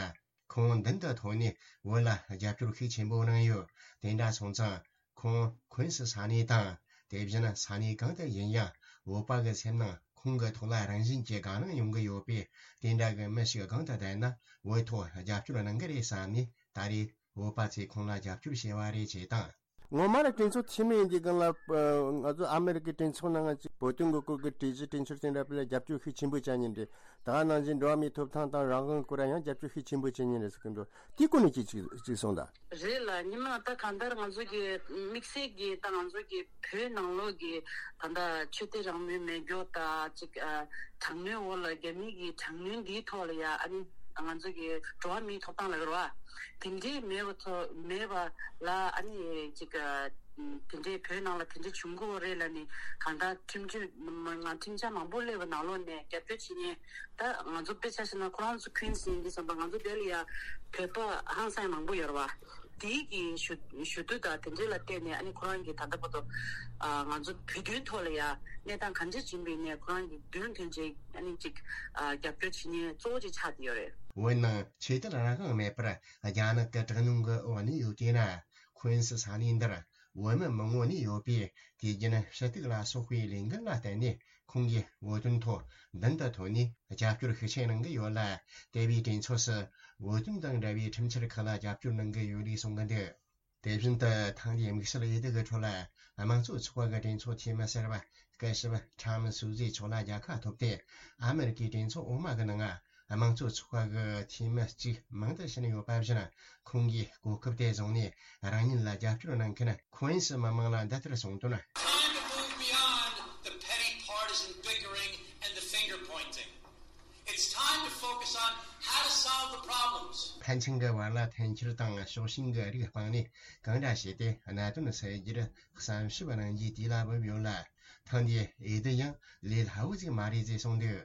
ཁོང་མདུན་དུ་ཐོན་ནས་བོད་ལ་རྒྱབ་སྐྱོར་ཤུགས་ཆེན་པོ་གནང་ཡོད། དེ་འདྲ་སོང་ཙང་ཁོང་ཁུན་སི་ས་གནས་དང་། དེ་བཞིན་ས་གནས་གང་དུ་ཡིན་ཡང་། བོད་པ་གི་སེམས་ནང་ཁོང་གི་ཐོག་ལ་རང་བཞིན་གྱིས་དགའ་སྣང་ཡོང་གི་ཡོད་པས། དེ་འདྲ་གི་མི་ཞིག་གང་དུ་བསྡད་ན་བོད་ཐོག་རྒྱབ་སྐྱོར་གནང་གི་རེད་བསམ་ནས། ད་རེས་བོད་པ་ཚོས་ཁོང་ལ་རྒྱབ་སྐྱོར་བྱས་པ་རེད་ཅེས་དང་། ངོ་མ་ལ་གྲོས་ཚོགས་འཐུས་མི་ཡིན་དུས་སྒང་ལ། ཨ། ང་ཚོ་ཨ་མེ་རི་ཀའི་གྲོས་ཚོགས་ནང་ང་ཅིག་བོད་དོན་གྱི་སྐོར་གྱི་གྲོས་གཞི་གྲོས་འཆར་དེ་འདྲ་དཔེ་ལ་རྒྱབ་སྐྱོར་ཤུགས་ཆེན་པོ་བྱ་མཁན་རེད། ད་ག་ནང་བཞིན་འགྲོ་བ་མིའི་ཐོབ་ཐང་དང་རང་དབང་སྐོར་ལ་ཡང་རྒྱབ་སྐྱོར་ཤུགས་ཆེན་པོ་བྱེད་མཁན་རེད་ཟེར་གྱི་འདུག་དེའི་སྐོར་ནས་ཅིག་ཅིག་ཅིག་གསུངས་དང་། རེད་ལགས། ཉི་མ་ད་གང་ལྟར་ང་ཚོ་གི་དམིགས་བསལ་གྱི་ད་ང་ཚོ་གི་བོད་ནང་ལོགས་ཀྱི་ད་ལྟ་ཆོས་དད་རང་མོས་མེད་རྒྱུ་དང་ཅིག་ཨ། དྲག་གནོན་འོག་ལ་རྒྱ་མི་གི་དྲག་གནོན་འདིའི་ཐོག་ལ་ཡ། ཨ་ནི་ང་ཚོ་གི་འགྲོ་བ་མིའི་ཐོབ་ཐང་ལ་རེད་བ། དེ་འདྲའི་མེད་པ་ཐོག་མེད་པ་ལ། ཨ་ནི་ཅིག་ཨ། དེ་འདྲའི་བོད་ནང་ལ་དེ་འདྲའི་བྱུང་གི་ཡོད་རེད་ལབ་ནས། གང་ལྟར་ཁྲིམས་གཅོད་མ་མ་ཁྲིམས་འཆར་མང་པོ་སླེབས་པ་ནང་ལོགས་ནས་རྒྱབ་སྐྱོར་བྱེད་མཁན། ད་ང་ཚོ་དཔེ་ཆ་བཞག་ན་ཁོ་རང་ཚོ་ཁུན་སི་ཡིན་གྱི་བསམ་པ། ང་ཚོ་དེ་ལ་ཡ་བོད་པ་ཧང་སང་མང་པོ་ཡོད་རེད་བ། དེའི་གི་ཞུ་ཞུ་དུས་དང་དེ་འདྲའི་ལ་བལྟས་ནས། ཨ་ནི་ཁོ་རང་གི་ད་ལྟ་བར་དུ་ཨ་ང་ཚོ་བོད་དོན་ཐོག་ལ་ཡ་གནས་སྟངས་གང་འདྲ་ཅིག་ཡིན་པའི་ནས། ཁོ་རང་གི་མདུན་དོན་ཅིག་ཨ་ནི་ཅིག་ཨ་རྒྱབ་སྐྱོར་བྱེད་མཁན་གཙོ་བོ་ཅིག་ཆགས་བསྡད་ཡོད་རེད། འོན་ནང་ཆོས་དད་རང་དབང་མེད་པར་རྒྱ་ནག་གི་དྲག་གནོན་གྱི་འོག་ནས་ཡོད་དེ་ན། ཁོན་སི་ས་གནས་འདིར་བོད་མི་མང་བོ་ནས་ཡོད་པས། དུས་རྒྱུན་ཕྱི་གཏུག་ལ་སོགས་པའི་ལས་འགུལ་ལ་བརྟེན་ནས། ཁོང་གིས་བོད་དོན་ཐོག་མདུན་དུ་ཐོན་ནས་རྒྱབ་སྐྱོར་ཤུགས་ཆེ་གནང་གི་ཡོད་ལ། དེ་བས་གྲོས་ཚོགས་སུ་བོད་དོན་དང་འབྲེལ་བའི་ཁྲིམས་འཆར་ཁག་ལ་རྒྱབ་སྐྱོར་གནང་གི་ཡོད་ལུགས་གསུང་གི་འདུག་དེ་བཞིན་དུ་ཐེངས་འདིའི་དམིགས་བསལ་འོས་བསྡུ་གི་ཁྲོད་ལ། དམངས་གཙོ་ཚོགས་པ་གི་གྲོས་ཚོགས་འཐུས་མི་གསར་པ་སྐུ་ཞབས་ཁྲམ་སུ་ཛི་མཆོག་ལ་རྒྱལ་ཁ་ཐོབ་སྟེ། ཨ་མེ་རི་ཀའི་གྲོས་ཚོགས་འོག་མ་གི་ནང་དམངས་གཙོ་ཚོགས་པ་གི་འཐུས་མི་གཅིག་མང་དུ་ཕྱིན་ཡོད་པ་བཞིན། ཁོང་གིས་གོ་སྐབས་དེ་བཟུང་ནས་རང་ཉིད་ལ་རྒྱབ་སྐྱོར་གནང་མཁན་ཁོན་སི་མི་མང་ལ་འདི་ལྟར་གསུངས་དོན། Time to move beyond the petty partisan bickering and the finger pointing. It's time to focus on how to solve the problems. ཕན་ཚུན་གྱི་བར་ལ་འཐེན་འཁྱེར་དང་ཕྱོགས་ཞེན་གྱི་རིགས་སྤངས་ནས། གང་འདྲ་བྱས་ཏེ་གནད་དོན་སེལ་རྒྱུར་བསམ་ཞིབ་གནང་རྒྱུའི་དུས་ལ་བབ་ཡོད་ལ། ཐེངས་འདིའི་འོས་བསྡུ་ཡང་ལས་སླ་བོ་ཞིག་མ་རེད་ཅེས་གསུངས་འདུག་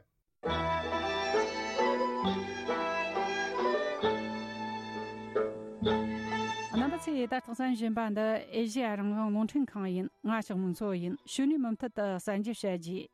རྣམ་པ་ཚོས་ད་ལྟ་གསན་བཞིན་པ་འདི་ཨེ་ཤེ་ཡ་རང་དབང་རླུང་འཕྲིན་ཁང་ཡིན། ང་ཞོགས་མོ་མཚོ་ཡིན། གཞུག་ནས་མུ་མཐུད་དུ་གསར་འགྱུར་བཤད་རྒྱུ།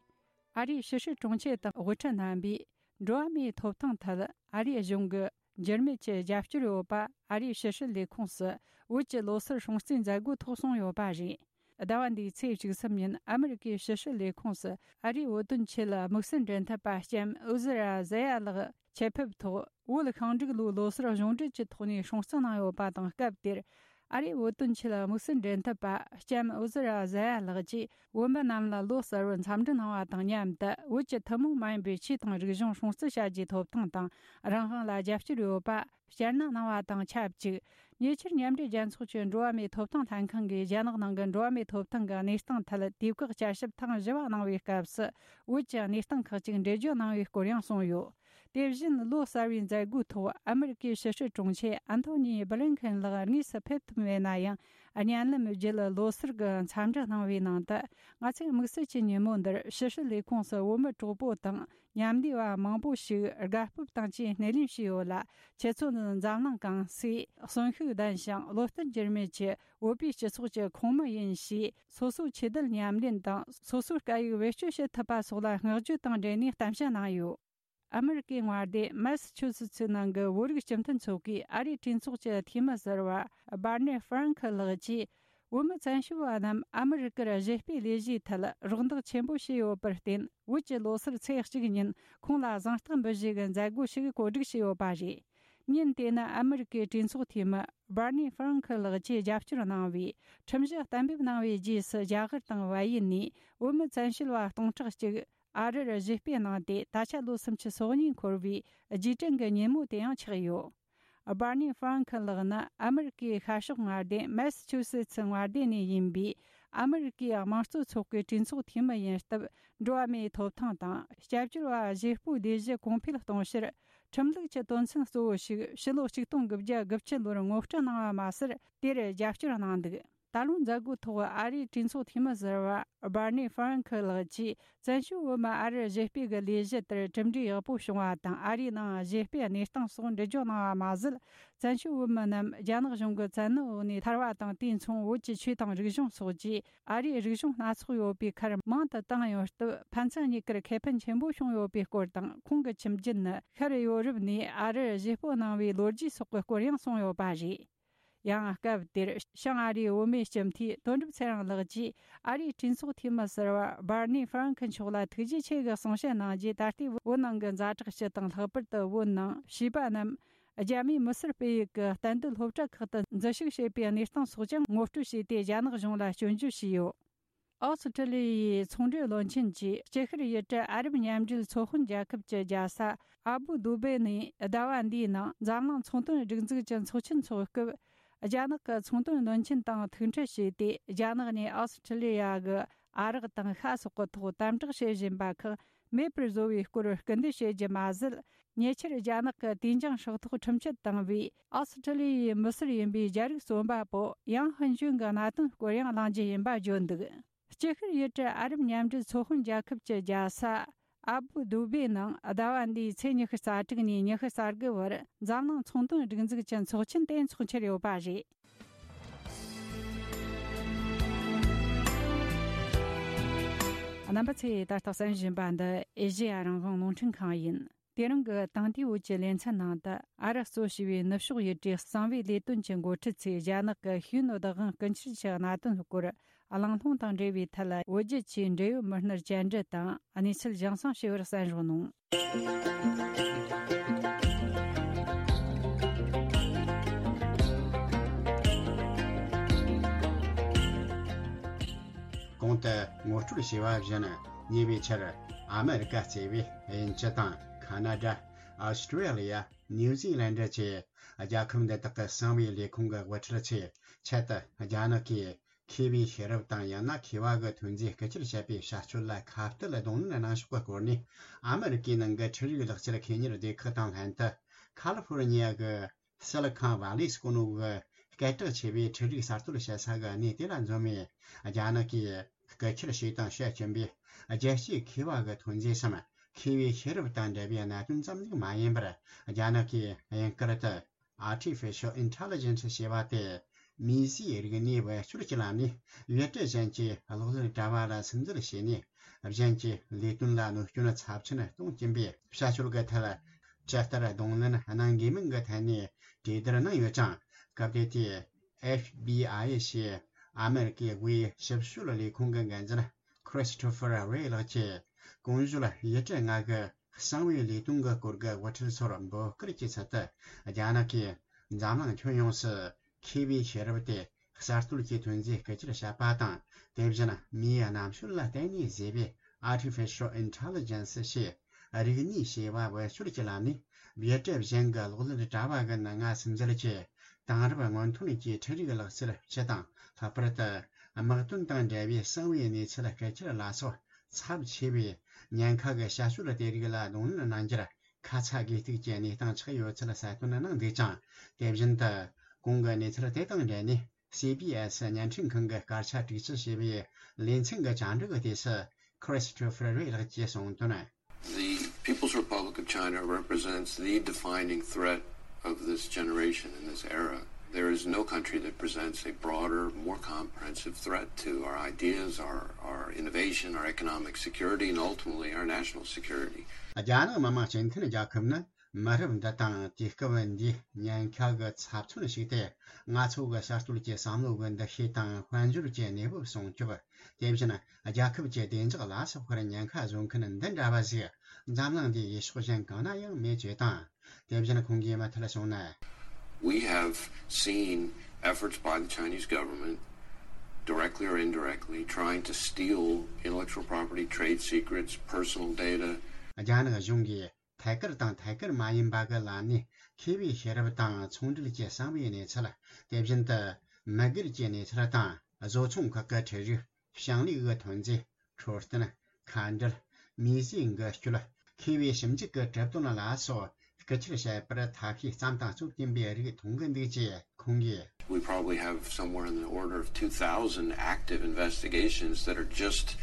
ཨ་རིའི་ཕྱི་སྲིད་དྲུང་ཆེ་དང་དབུ་ཁྲིད་རྣམ་པས་འགྲོ་བ་མིའི་ཐོབ་ཐང་ཐད་ཨ་རིའི་གཞུང་གི་འགྱུར་མེད་ཀྱི་རྒྱབ་སྐྱོར་ཡོད་པ་ཨ་རིའི་ཕྱི་སྲིད་ལས་ཁུངས་སུ་བོད་ཀྱི་ལོ་སར་སྲུང་བརྩིའི་མཛད་སྒོའི་ཐོག་གསུངས་ཡོད་པ་རེད། ཟླ་བ་འདིའི་ཚེས་བཅུ་གསུམ་ཉིན་ཨ་མེ་རི་ཀའི་ཕྱི་སྲིད་ལས་ཁུངས་སུ་ཨ་རིའི་བོད་དོན་ཆེད་དམིགས་བསལ་འབྲེལ་མཐུད་པ་ལྕམ་ཨུ་ཟི་ར་ཟེ་ཡ་ལགས་ཆེད་ཕེབས་ཐོག་བོད་ཤིང་འབྲུག་ལོའི་ལོ་སར་གཞུང་འབྲེལ་གྱི་ཐོག་ནས་སྲུང་བརྩི་གནང་ཡོད་པ་དང་། སྐབས་དེར་ཨ་རིའི་བོད་དོན་ཆེད་དམིགས་བསལ་འབྲེལ་མཐུད་པ་ལྕམ་ཨུ་ཟི་ར་ཟེ་ཡ་ལགས་ཀྱིས་བོད་མི་རྣམས་ལ་ལོ་གསར་བར་འཚམས་འདྲི་གནང་བ་དང་མཉམ་དུ། བོད་ཀྱི་ཐུན་མོང་མ་ཡིན་པའི་ཆོས་དང་རིག་གཞུང་སྲུང་བརྩི་བྱ་རྒྱུའི་ཐོབ་ཐང་དང་རང་དབང་ལ་རྒྱབ་སྐྱོར་ཡོད་པ་སྐྱར་ནན་གནང་བ་དང་ཆབས་ཅིག་ཉེ་ཆར་མཉམ་འབྲེལ་རྒྱལ་ཚོགས་ཀྱི་འགྲོ་བ་མིའི་ཐོབ་ཐང་ལྷན་ཁང་གིས་རྒྱ་ནག་ནང་གི་འགྲོ་བ་མིའི་ཐོབ་ཐང་གི་གནས་སྟངས་ཐད་དུས་བཀག་བསྐྱར་ཞིབ་ཐེངས་བཞི་བ་གནང་བའི་སྐབས་སུ། བོད་ཀྱི་གནས་སྟངས་ཁག་ཅིག་འགྲེལ་བརྗོད་གནང་བའི་སྐོར་ཡང་གསུངས་ཡོད། དེ་བཞིན་ལོ་གསར་བའི་མཛད་སྒོའི་ཐོག་ཨ་མེ་རི་ཀའི་ཕྱི་སྲིད་དྲུང་ཆེ་ཨན་ཐོ་ནི་སྦི་ལིན་ཁེན་ལགས་དངོས་སུ་ཕེབས་ཐུབ་མེད་ན་ཡང་། བརྙན་ལམ་བརྒྱུད་ལོ་སར་གྱི་འཚམས་འདྲི་གནང་བའི་ནང་དུ། ང་ཚོས་དམིགས་བསལ་གྱི་ཉིན་མོ་འདིར་ཕྱི་སྲིད་ལས་ཁུངས་སུ་བོད་མི་གྲོགས་པོ་དང་མཉམ་འདུས་པ་མང་པོ་ཞིག་དགའ་སྤོབས་དང་བཅས་སྣེ་ལེན་བྱས་ཡོད་ལ། ཁྱེད་ཚོ་ནི་འཛམ་གླིང་གང་སའི་གསོན་ཤུགས་ལྡན་ཞིང་བློ་བརྟན་འགྱུར་མེད་ཀྱི་བོད་པའི་སྤྱི་ཚོགས་ཀྱི་ཁོངས་མི་ཡིན་ཞེས། སོ་སོའི་ཆོས་དད་ཉམས་ལེན་དང་སོ་སོའི་སྐད་ཡིག་བེད་སྤྱོད་བྱེད་ཐུབ་པ་སོགས་ལ་བསྔགས་བརྗོད་དང་འབྲེལ་ནས་གཏམ་བཤད་གནང་ཡོད། ཨ་མེ་རི་ཀའི་མངའ་སྡེ་མེ་སི་ཆུ་སི་ཚི་ནང་གི་བོད་རིགས་སྤྱི་མཐུན་ཚོགས་པའི་ཨ་རིའི་གྲོས་ཚོགས་ཀྱི་འཐུས་མི་ཟུར་པ་སྦར་ནེ་ཧྥ་རན་ཁི་ལགས་ཀྱིས། བོད་མི་བཙན་བྱོལ་བ་རྣམས་ཨ་མེ་རི་ཀར་གཞས་སྤེལ་ལས་གཞིའི་ཐད་རོགས་འདེགས་ཆེན་པོ་བྱས་ཡོད་པར་བརྟེན། བོད་ཀྱི་ལོ་སར་ཚེས་གཅིག་ཉིན་ཁོང་ལ་གཟེངས་རྟགས་འབུལ་བཞེས་ཀྱི་མཛད་སྒོ་ཞིག་གོ་སྒྲིག་བྱས་ཡོད་པ་རེད། ཉིན་དེ་ནི་ཨ་མེ་རི་ཀའི་གྲོས་ཚོགས་འཐུས་མི་སྦར་ནེ་ཧྥ་རན་ཁི་ལགས་ཀྱིས་རྒྱབ་སྐྱོར་གནང་བའི་ཁྲིམས་གཞི་གཏན་འབེབས་གནང་བའི་རྗེས་སུ། རྒྱ་གར་དང་བལ་ཡུལ་ནས་བོད་མི་བཙན་བྱོལ་བ་སྟོང་ཕྲག་གཅིག་ཨ་རིར་གཞས་སྤེལ་གནང་སྟེ། ད་ཆ་ལོ་སུམ་ཅུ་སོ་གཉིས་འཁོར་བའི་རྗེས་དྲན་གྱི་ཉིན་མོ་དེ་ཡང་ཆགས་ཡོད། སྦར་ནེ་ཧྥ་རན་ཁི་ལགས་ནི་ཨ་མེ་རི་ཀའི་ཤར་ཕྱོགས་མངའ་སྡེ་མེ་སི་ཆུ་སེ་ཚི་མངའ་སྡེ་ནས་ཡིན་པའི་ཨ་མེ་རི་ཀའི་དམངས་གཙོ་ཚོགས་པའི་གྲོས་ཚོགས་འཐུས་མི་ཡིན་སྟབས། འགྲོ་བ་མིའི་ཐོབ་ཐང་དང་སྐྱབས་བཅོལ་བ་གཞས་སྤོའི་ལས་གཞི་གོང་འཕེལ་གཏོང་ཕྱིར། ཁྲིམས་ལུགས་ཀྱི་དོན་ཚན་གཙོ་བོ་ཞིག་ཕྱི་ལོ་ཆིག་སྟོང་དགུ་བརྒྱ་དགུ་བཅུ་ལོར་ངོ་སྤྲོད་གནང་བ་མ་ཟད། དེར་རྒྱབ་སྐྱོར་གནང་འདུག་ད་ལོའི་མཛད་སྒོའི་ཐོག་ཨ་རིའི་གྲོས་ཚོགས་འཐུས་མི་ཟུར་པ་སྦར་ནེ་ཧྥ་རན་ཁི་ལགས་ཀྱིས། བཙན་བྱོལ་བོད་མི་ཨ་རིར་གཞས་སྤེལ་གྱི་ལས་གཞི་དེར་གྲུབ་འབྲས་ཡག་པོ་བྱུང་བ་དང་། ཨ་རིའི་ནང་གཞས་སྤེལ་གནས་སྟངས་སོགས་འགྲེལ་བརྗོད་གནང་བ་མ་ཟད། བཙན་བྱོལ་བོད་མི་རྣམས་རྒྱ་ནག་གཞུང་གི་བཙན་གནོན་འོག་ནས་ཐར་བ་དང་། དེ་མཚུངས་བོད་ཀྱི་ཆོས་དང་རིག་གཞུང་སོགས་ཀྱི་ཨ་རིའི་རིག་གཞུང་སྣ་ཚོགས་ཡོད་པའི་ཁར་མང་དུ་བཏང་ཡོད་སྟབས། ཕན་ཚུན་གཉིས་ཀར་ཁེ་ཕན་ཆེན་པོ་བྱུང་ཡོད་པའི་སྐོར་དང་། ཁོང་གི་ཁྱིམ་རྒྱུད་ནི་ཤར་ཡོ་རོབ་ནས་ཨ་རིར་གཞས་སྤོ་གནང་བའི་ལོ་རྒྱུས་སོགས་ཀྱི་སྐོར་ཡང་གསུངས་ཡོད་པ་རེད། ཡང་སྐབས་དེར་བྱང་ཨ་རིའི་བུད་མེད་སྤྱི་འཐུས་དོན་གྲུབ་ཚེ་རིང་ལགས་ཀྱིས་ཨ་རིའི་གྲོས་ཚོགས་འཐུས་མི་ཟུར་པ་སྦར་ནེ་ཧྥ་རན་ཁི་མཆོག་ལ་ཐུགས་རྗེ་ཆེ་གི་གསུང་བཤད་གནང་རྗེས། ད་ལྟའི་བོད་ནང་གི་ཛ་དྲག་སྤྱི་དང་། ལྷག་པར་དུ་བོད་ནང་བྱིས་པ་རྣམས་རྒྱ་མིའི་མི་སེར་སྤེལ་ཡུལ་གྱི་གཏན་སྡོད་སློབ་གྲྭ་ཁག་ཏུ་འཛུལ་ཞུགས་བྱེད་པའི་གནས་སྟངས་སོགས་ཀྱང་ངོ་སྤྲོད་བྱས་ཏེ། རྒྱ་ནག་གཞུང་ལ་སྐྱོན་བརྗོད་བྱས་ཡོད། ཨོ་སི་ཁྲི་ལི་ཡའི་ཚོང་འབྲེལ་བློན་ཆེན་གྱིས་སྐྱིད་ཤར་ཡུལ་གྲུ་ཨ་རབ་མཉམ་འབྲེལ་ཚོགས་དཔོན་རྒྱལ་ཁབ་ཀྱི་རྒྱལ་ས་ཨ་བུ་དུ་བེ་ནས་ཟླ་བ་འདིའི་ནང་འཛམ་གླིང་ཚོང་དོན་སྒྲིག་འཛུགས་ཀྱི་ཚོགས་ཆེན་འཚོགས་སྐབས། རྒྱ་ནག་གི་ཚོང་དོན་བློན་ཆེན་དང་ཐུག་འཕྲད་བྱས་ཏེ། རྒྱ་ནག་ནས་ཨོ་སི་ཁྲི་ལི་ཡ་གི་ ཨ་རག་དང་ཤ་སོགས་ཀྱི་ཐོག་དམ་དྲག་བྱེད་བཞིན་པ་ཁག་མེད་པར་བཟོ་བའི་སྐོར་སྐུལ་འདེད་བྱེད་རྒྱུ་མ་ཟད། ཉེ་ཆར་རྒྱ་ནག་གི་དུས་འགྱངས་ཧྲག་ཐོག་ཁྲིམས་ཆད་བཏང་བའི་ཨོ་སི་ཁྲི་ལི་ཡའི་མི་སེར་ཡིན་པའི་རྒྱ་རིགས་རྩོམ་པ་པོ་ཡང་ཧུན་ཅུན་གྱི་གནད་དོན་སྐོར་ཡང་གླེང་རྒྱུ་ཡིན་པ་བརྗོད་འདུག་སྤྱི་ཤར་ཡུལ་གྲུ་ཨ་རབ་མཉམ་འབྲེལ་ཚོགས་དཔོན་རྒྱལ་ཁབ་ཀྱི་རྒྱལ་ས་ཨ་བུ་དུ་བེ་ནང་ཟླ་བ་འདིའི་ཚེས་ཉི་ཤུ་རྩ་དྲུག་ནས་ཉི་ཤུ་རྩ་དགུ་བར་འཛམ་གླིང་ཚོང་དོན་སྒྲིག་འཛུགས་ཀྱི་ཚོགས་ཆེན་དེ་འཚོགས་འཆར་ཡོད་པ་རེད། རྣམ་པ་ཚོས་ད་ལྟ་གསན་བཞིན་པ་འདི་ཨེ་ཤེ་ཡ་རང་དབང་རླུང་འཕྲིན་ཁང་ཡིན། དེ་རིང་གི་དེང་དུས་བོད་ཀྱི་ལེ་ཚན་ནང་དུ་ཨ་རག་གཙོ་བྱས་པའི་ནུབ་ཕྱོགས་ཡུལ་གྲུའི་གསང་བའི་ལས་དོན་གྱི་འགོ་ཁྲིད་ཚོས་རྒྱ་ནག་གི་ཤེས་ཡོན་བདག་དབང་རྐུ་འཁྱེར་གྱི་གནད་དོན་སྐོར་གླེང་སློང་དང་འབྲེལ་བའི་ཐད་བོད་བརྒྱུད་ཆེད་འབྲེལ་ཡོད་མི་སྣར་བཅར་འདྲི་དང་གནས་ཚུལ་རྒྱང་སྲིང་ཞུས་པར་གསན་རོགས་གནང་། གོང་དུ་ངོ་སྤྲོད་བྱས་པ་བཞིན། ཉེ་བའི་ཆར་ཨ་མེ་རི་ཀ་གཙོས་པའི་དབྱིན་ཇི་དང་ཁ་ན་ཌ། ཨོ་སི་ཀྲི་ལི་ཡ། ནིའུ་ཛི་ལན་ཌ་བཅས་རྒྱལ་ཁབ་འདི་དག་གི་གསང་བའི་ལས་ཁུངས་ཀྱི་དབུ་ཁྲིད་ཚོས་ཆེད་དུ་རྒྱ་ནག་གིས་མཁས་པའི་ཤེས་རབ་དང་ཡང་ན་མཁས་པ་གི་ཐོན་རྫས་རྐུ་འཁྱེར་བྱས་པའི་བྱ་སྤྱོད་ལ་ཁ་གཏད་གདོང་ལེན་གནང་ཕྱོགས་ཀྱི་སྐོར་ནས། ཨ་མེ་རི་ཀའི་ནང་གི་འཕྲུལ་རིག་ལག་ཁྱེར་མཁས་གཉེར་སྡེ་ཁག་དང་ལྷན་དུ་ཁ་ལི་ཧྥོ་རི་ཉི་ཡ་གི་སི་ལི་ཁོན་ཝ་ལི་ཟེར་གོ་ནོ་གི་སྐད་གྲགས་ཆེ་བའི་འཕྲུལ་རིག་གསར་གཏོད་བྱེད་ས་གི་གནས་དེ་ལ་འཛོམས་ནས། རྒྱ་ནག་གིས་རྐུ་འཁྱེར་བྱས་དང་བྱེད་ཀྱིན་པའི་རྒྱལ་སྤྱིའི་མཁས་པ་གི་ཐོན་རྫས་སམ། མཁས་པའི་ཤེས་རབ་དང་འབྲེལ་བའི་གནད་དོན་ཙམ་ཞིག་མ་ཡིན་པར། རྒྱ་ནག་གིས་དབྱིན་སྐད་དུ་Artificial Intelligence ཞེས་པ་དེ། མིས་བཟོས་རིག་གནས་བེད་སྤྱོད་ཀྱི་ལམ་ནས་ཡུལ་གྲུ་གཞན་གྱི་གློག་ཀླད་དྲ་བ་ལ་སིམ་འཛུལ་བྱས་ནས། གཞན་གྱི་ལས་དོན་ལ་གནོད་སྐྱོན་ཚབས་ཆེན་གཏོང་གིན་པའི་བྱ་སྤྱོད་ཀྱི་ཐད། ཇི་ལྟར་གདོང་ལེན་གནང་དགོས་མིན་གྱི་ཐད་ནས་གྲོས་བསྡུར་གནང་ཡོད་ཅིང་། སྐབས་དེ་དུས་ཨེཕ་བི་ཨའི་ཞེས་ཨ་མེ་རི་ཀའི་དབུས་ཞིབ་དཔྱོད་ལས་ཁུངས་ཀྱི་འགན་འཛིན་Christopher Wray ལགས་ཀྱིས། གོང་ཞུས་ཡུལ་གྲུ་ལྔ་གི་གསང་བའི་ལས་དོན་གྱི་སྐོར་གྱི་དབུ་ཁྲིད་ཚོར་འབོད་སྐུལ་གྱི་ཚུལ་དུ། རྒྱ་ནག་གིས་འཛམ་གླིང་ཁྱོན་ཡོངས་སུ་མཁས་པའི་ཤེས་རབ་དེ་གསར་གཏོད་ཀྱི་ཐོན་རྫས་རྐུ་འཁྱེར་བྱས་པ་དང་། དེ་བཞིན་མིའི་རྣམ་དཔྱོད་ལ་བརྟེན་ནས་བཟོས་པའི་Artificial Intelligence ཞེས་རིག་ནུས་ཞེས་པ་བེད་སྤྱོད་ཀྱི་ལམ་ནས་ཡུལ་གྲུ་གཞན་གྱི་གློག་ཀླད་དྲ་བ་གི་ནང་ང་སིམ་འཛུལ་གྱིས། དེང་རབས་སྔོན་ཐོན་གྱི་འཕྲུལ་རིག་ལག་རྩལ་སྤྱི་དང་། ལྷག་པར་དུ་དམག་དོན་དང་འབྲེལ་བའི་གསང་བའི་གནས་ཚུལ་རྐུ་འཁྱེར་ལ་སོགས་ཚབས་ཆེ་བའི་ཉེན་ཁ་གི་བྱ་སྤྱོད་དེ་རིགས་ལ་གདོང་ལེན་གནང་རྒྱུར་ཁ་ཚ་དགོས་གཏུགས་ཀྱི་གནས་སྟངས་ཆགས་ཡོད་ཚུལ་གསལ་སྟོན་གནང་འདུག་ཅིང་། དེ་བཞིན་དུ་གོང་གི་གནས་ཚུལ་དེ་དང་འབྲེལ་ནས། སི་བི་ཨེ་སི་བརྙན་འཕྲིན་ཁང་གི་སྐར་ཆ་དྲུག་ཅུ་ཞེས་པའི་ལེ་ཚན་གྱི་བཅར་འདྲི་གི་དུས་སུ། Christopher Wray ལགས་ཀྱིས་གསུངས་དོན། The People's Republic of China represents the defining threat of this generation and this era. There is no country that presents a broader, more comprehensive threat to our ideas, our, our innovation, our economic security, and ultimately our national security. རྒྱ་ནག་མི་དམངས་སྤྱི་མཐུན་རྒྱལ་ཁབ་ནི་མི་རབས་འདི་དང་དུས་སྐབས་འདིའི་ཉེན་ཁ་གི་ཚབས་ཆེན་ཞིག་སྟེ། ང་ཚོ་གི་གསར་གཏོད་ཀྱི་བསམ་བློ་གི་འདུ་ཤེས་དང་དཔལ་འབྱོར་གྱི་གནས་བབ་སྲུང་སྐྱོབ། དེ་བཞིན་རྒྱལ་ཁབ་ཀྱི་བདེ་འཇགས་ལ་སོགས་པར་ཉེན་ཁ་བཟོ་མཁན་འདི་འདྲ་བ་ཞིག་འཛམ་གླིང་འདིའི་ཡུལ་ཕྱོགས་གཞན་གང་ན་ཡང་མེད་ཅེས་དང་། དེ་བཞིན་ཁོང་གིས་མུ་མཐུད་གསུངས་ན། We have seen efforts by the Chinese government, directly or indirectly, trying to steal intellectual property, trade secrets, personal data. རྒྱ་ནག་གཞུང་གིས་ཐད་ཀར་དང་ཐད་ཀར་མ་ཡིན་པ་གི་ལམ་ནས་མཁས་པའི་ཤེས་རབ་དང་ཚོང་འབྲེལ་གྱི་གསང་བའི་གནས་ཚུལ། དེ་བཞིན་དུ་མི་སྒེར་གྱི་གནས་ཚུལ་དང་བཟོ་ཚོང་ཁག་གི་ཁྲལ་རིགས། ཞིང་ལས་ཀྱི་ཐོན་རྫས། འཕྲོད་བསྟེན། མཁའ་འགྲུལ། མིས་བཟོས་འགུལ་སྐྱོད། མཁས་པའི་ཞིབ་འཇུག་གི་གྲུབ་དོན་ལ་སོགས་རྐུ་འཁྱེར་བྱས་པར་ཐབས་ཤེས་བརྩམས་དང་རྩོད་ཀྱིན་པའི་རིགས་མཐོང་གི་འདུག་ཅེས་ཁོང་གིས། We probably have somewhere in the order of two thousand active investigations that are just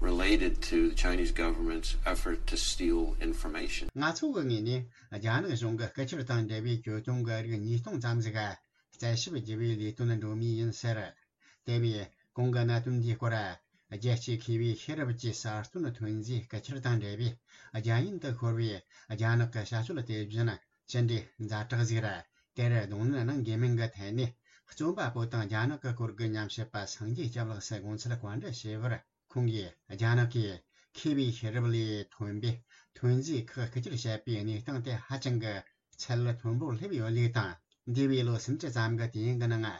related to the Chinese government's effort to steal information. ང་ཚོ་གི་ངོས་ནས་རྒྱ་ནག་གཞུང་གི་རྐུ་འཁྱེར་དང་འབྲེལ་བའི་གྱོད་དོན་གྱི་རིགས་ཉིས་སྟོང་ཙམ་ཞིག་རྩད་ཞིབ་བགྱི་བའི་ལས་དོན་འགྲོ་མུས་ཡིན་ཟེར། དེ་བས་གོང་གི་གནད་དོན་འདིའི་སྐོར། རྒྱལ་སྤྱིའི་མཁས་པའི་ཤེས་རབ་ཀྱི་གསར་གཏོད་ཐོན་རྫས་རྐུ་འཁྱེར་དང་འབྲེལ་བའི་རྒྱ་ཡན་དུ་ཤོར་བའི་རྒྱ་ནག་གི་བྱ་སྤྱོད་དེ་བཞིན་ཅི་འདྲའི་ཛ་དྲག་ཟིག་ར། དེར་གདོང་ལེན་གནང་དགོས་མིན་གྱི་ཐད་ནས། རྩོམ་པ་པོ་དང་རྒྱ་ནག་གི་སྐོར་གྱི་ཉམས་ཞིབ་པ་སངས་རྒྱས་སྐྱབས་ལགས་སུ་དགོངས་ཚུལ་བཀའ་འདྲི་ཞུས་པར། ཁོང་གིས་རྒྱ་ནག་གིས་མཁས་པའི་ཤེས་རབ་ལས་ཐོན་པའི་ཐོན་རྫས་ཁག་རྐུ་འཁྱེར་བྱས་པའི་གནས་སྟངས་དེ་ཧ་ཅང་གི་ཚད་མཐོན་པོར་སླེབས་ཡོད་ལུགས་དང་། འདས་པའི་ལོ་སུམ་ཅུ་ཙམ་གྱི་དུས་ཡུན་གྱི་ནང་།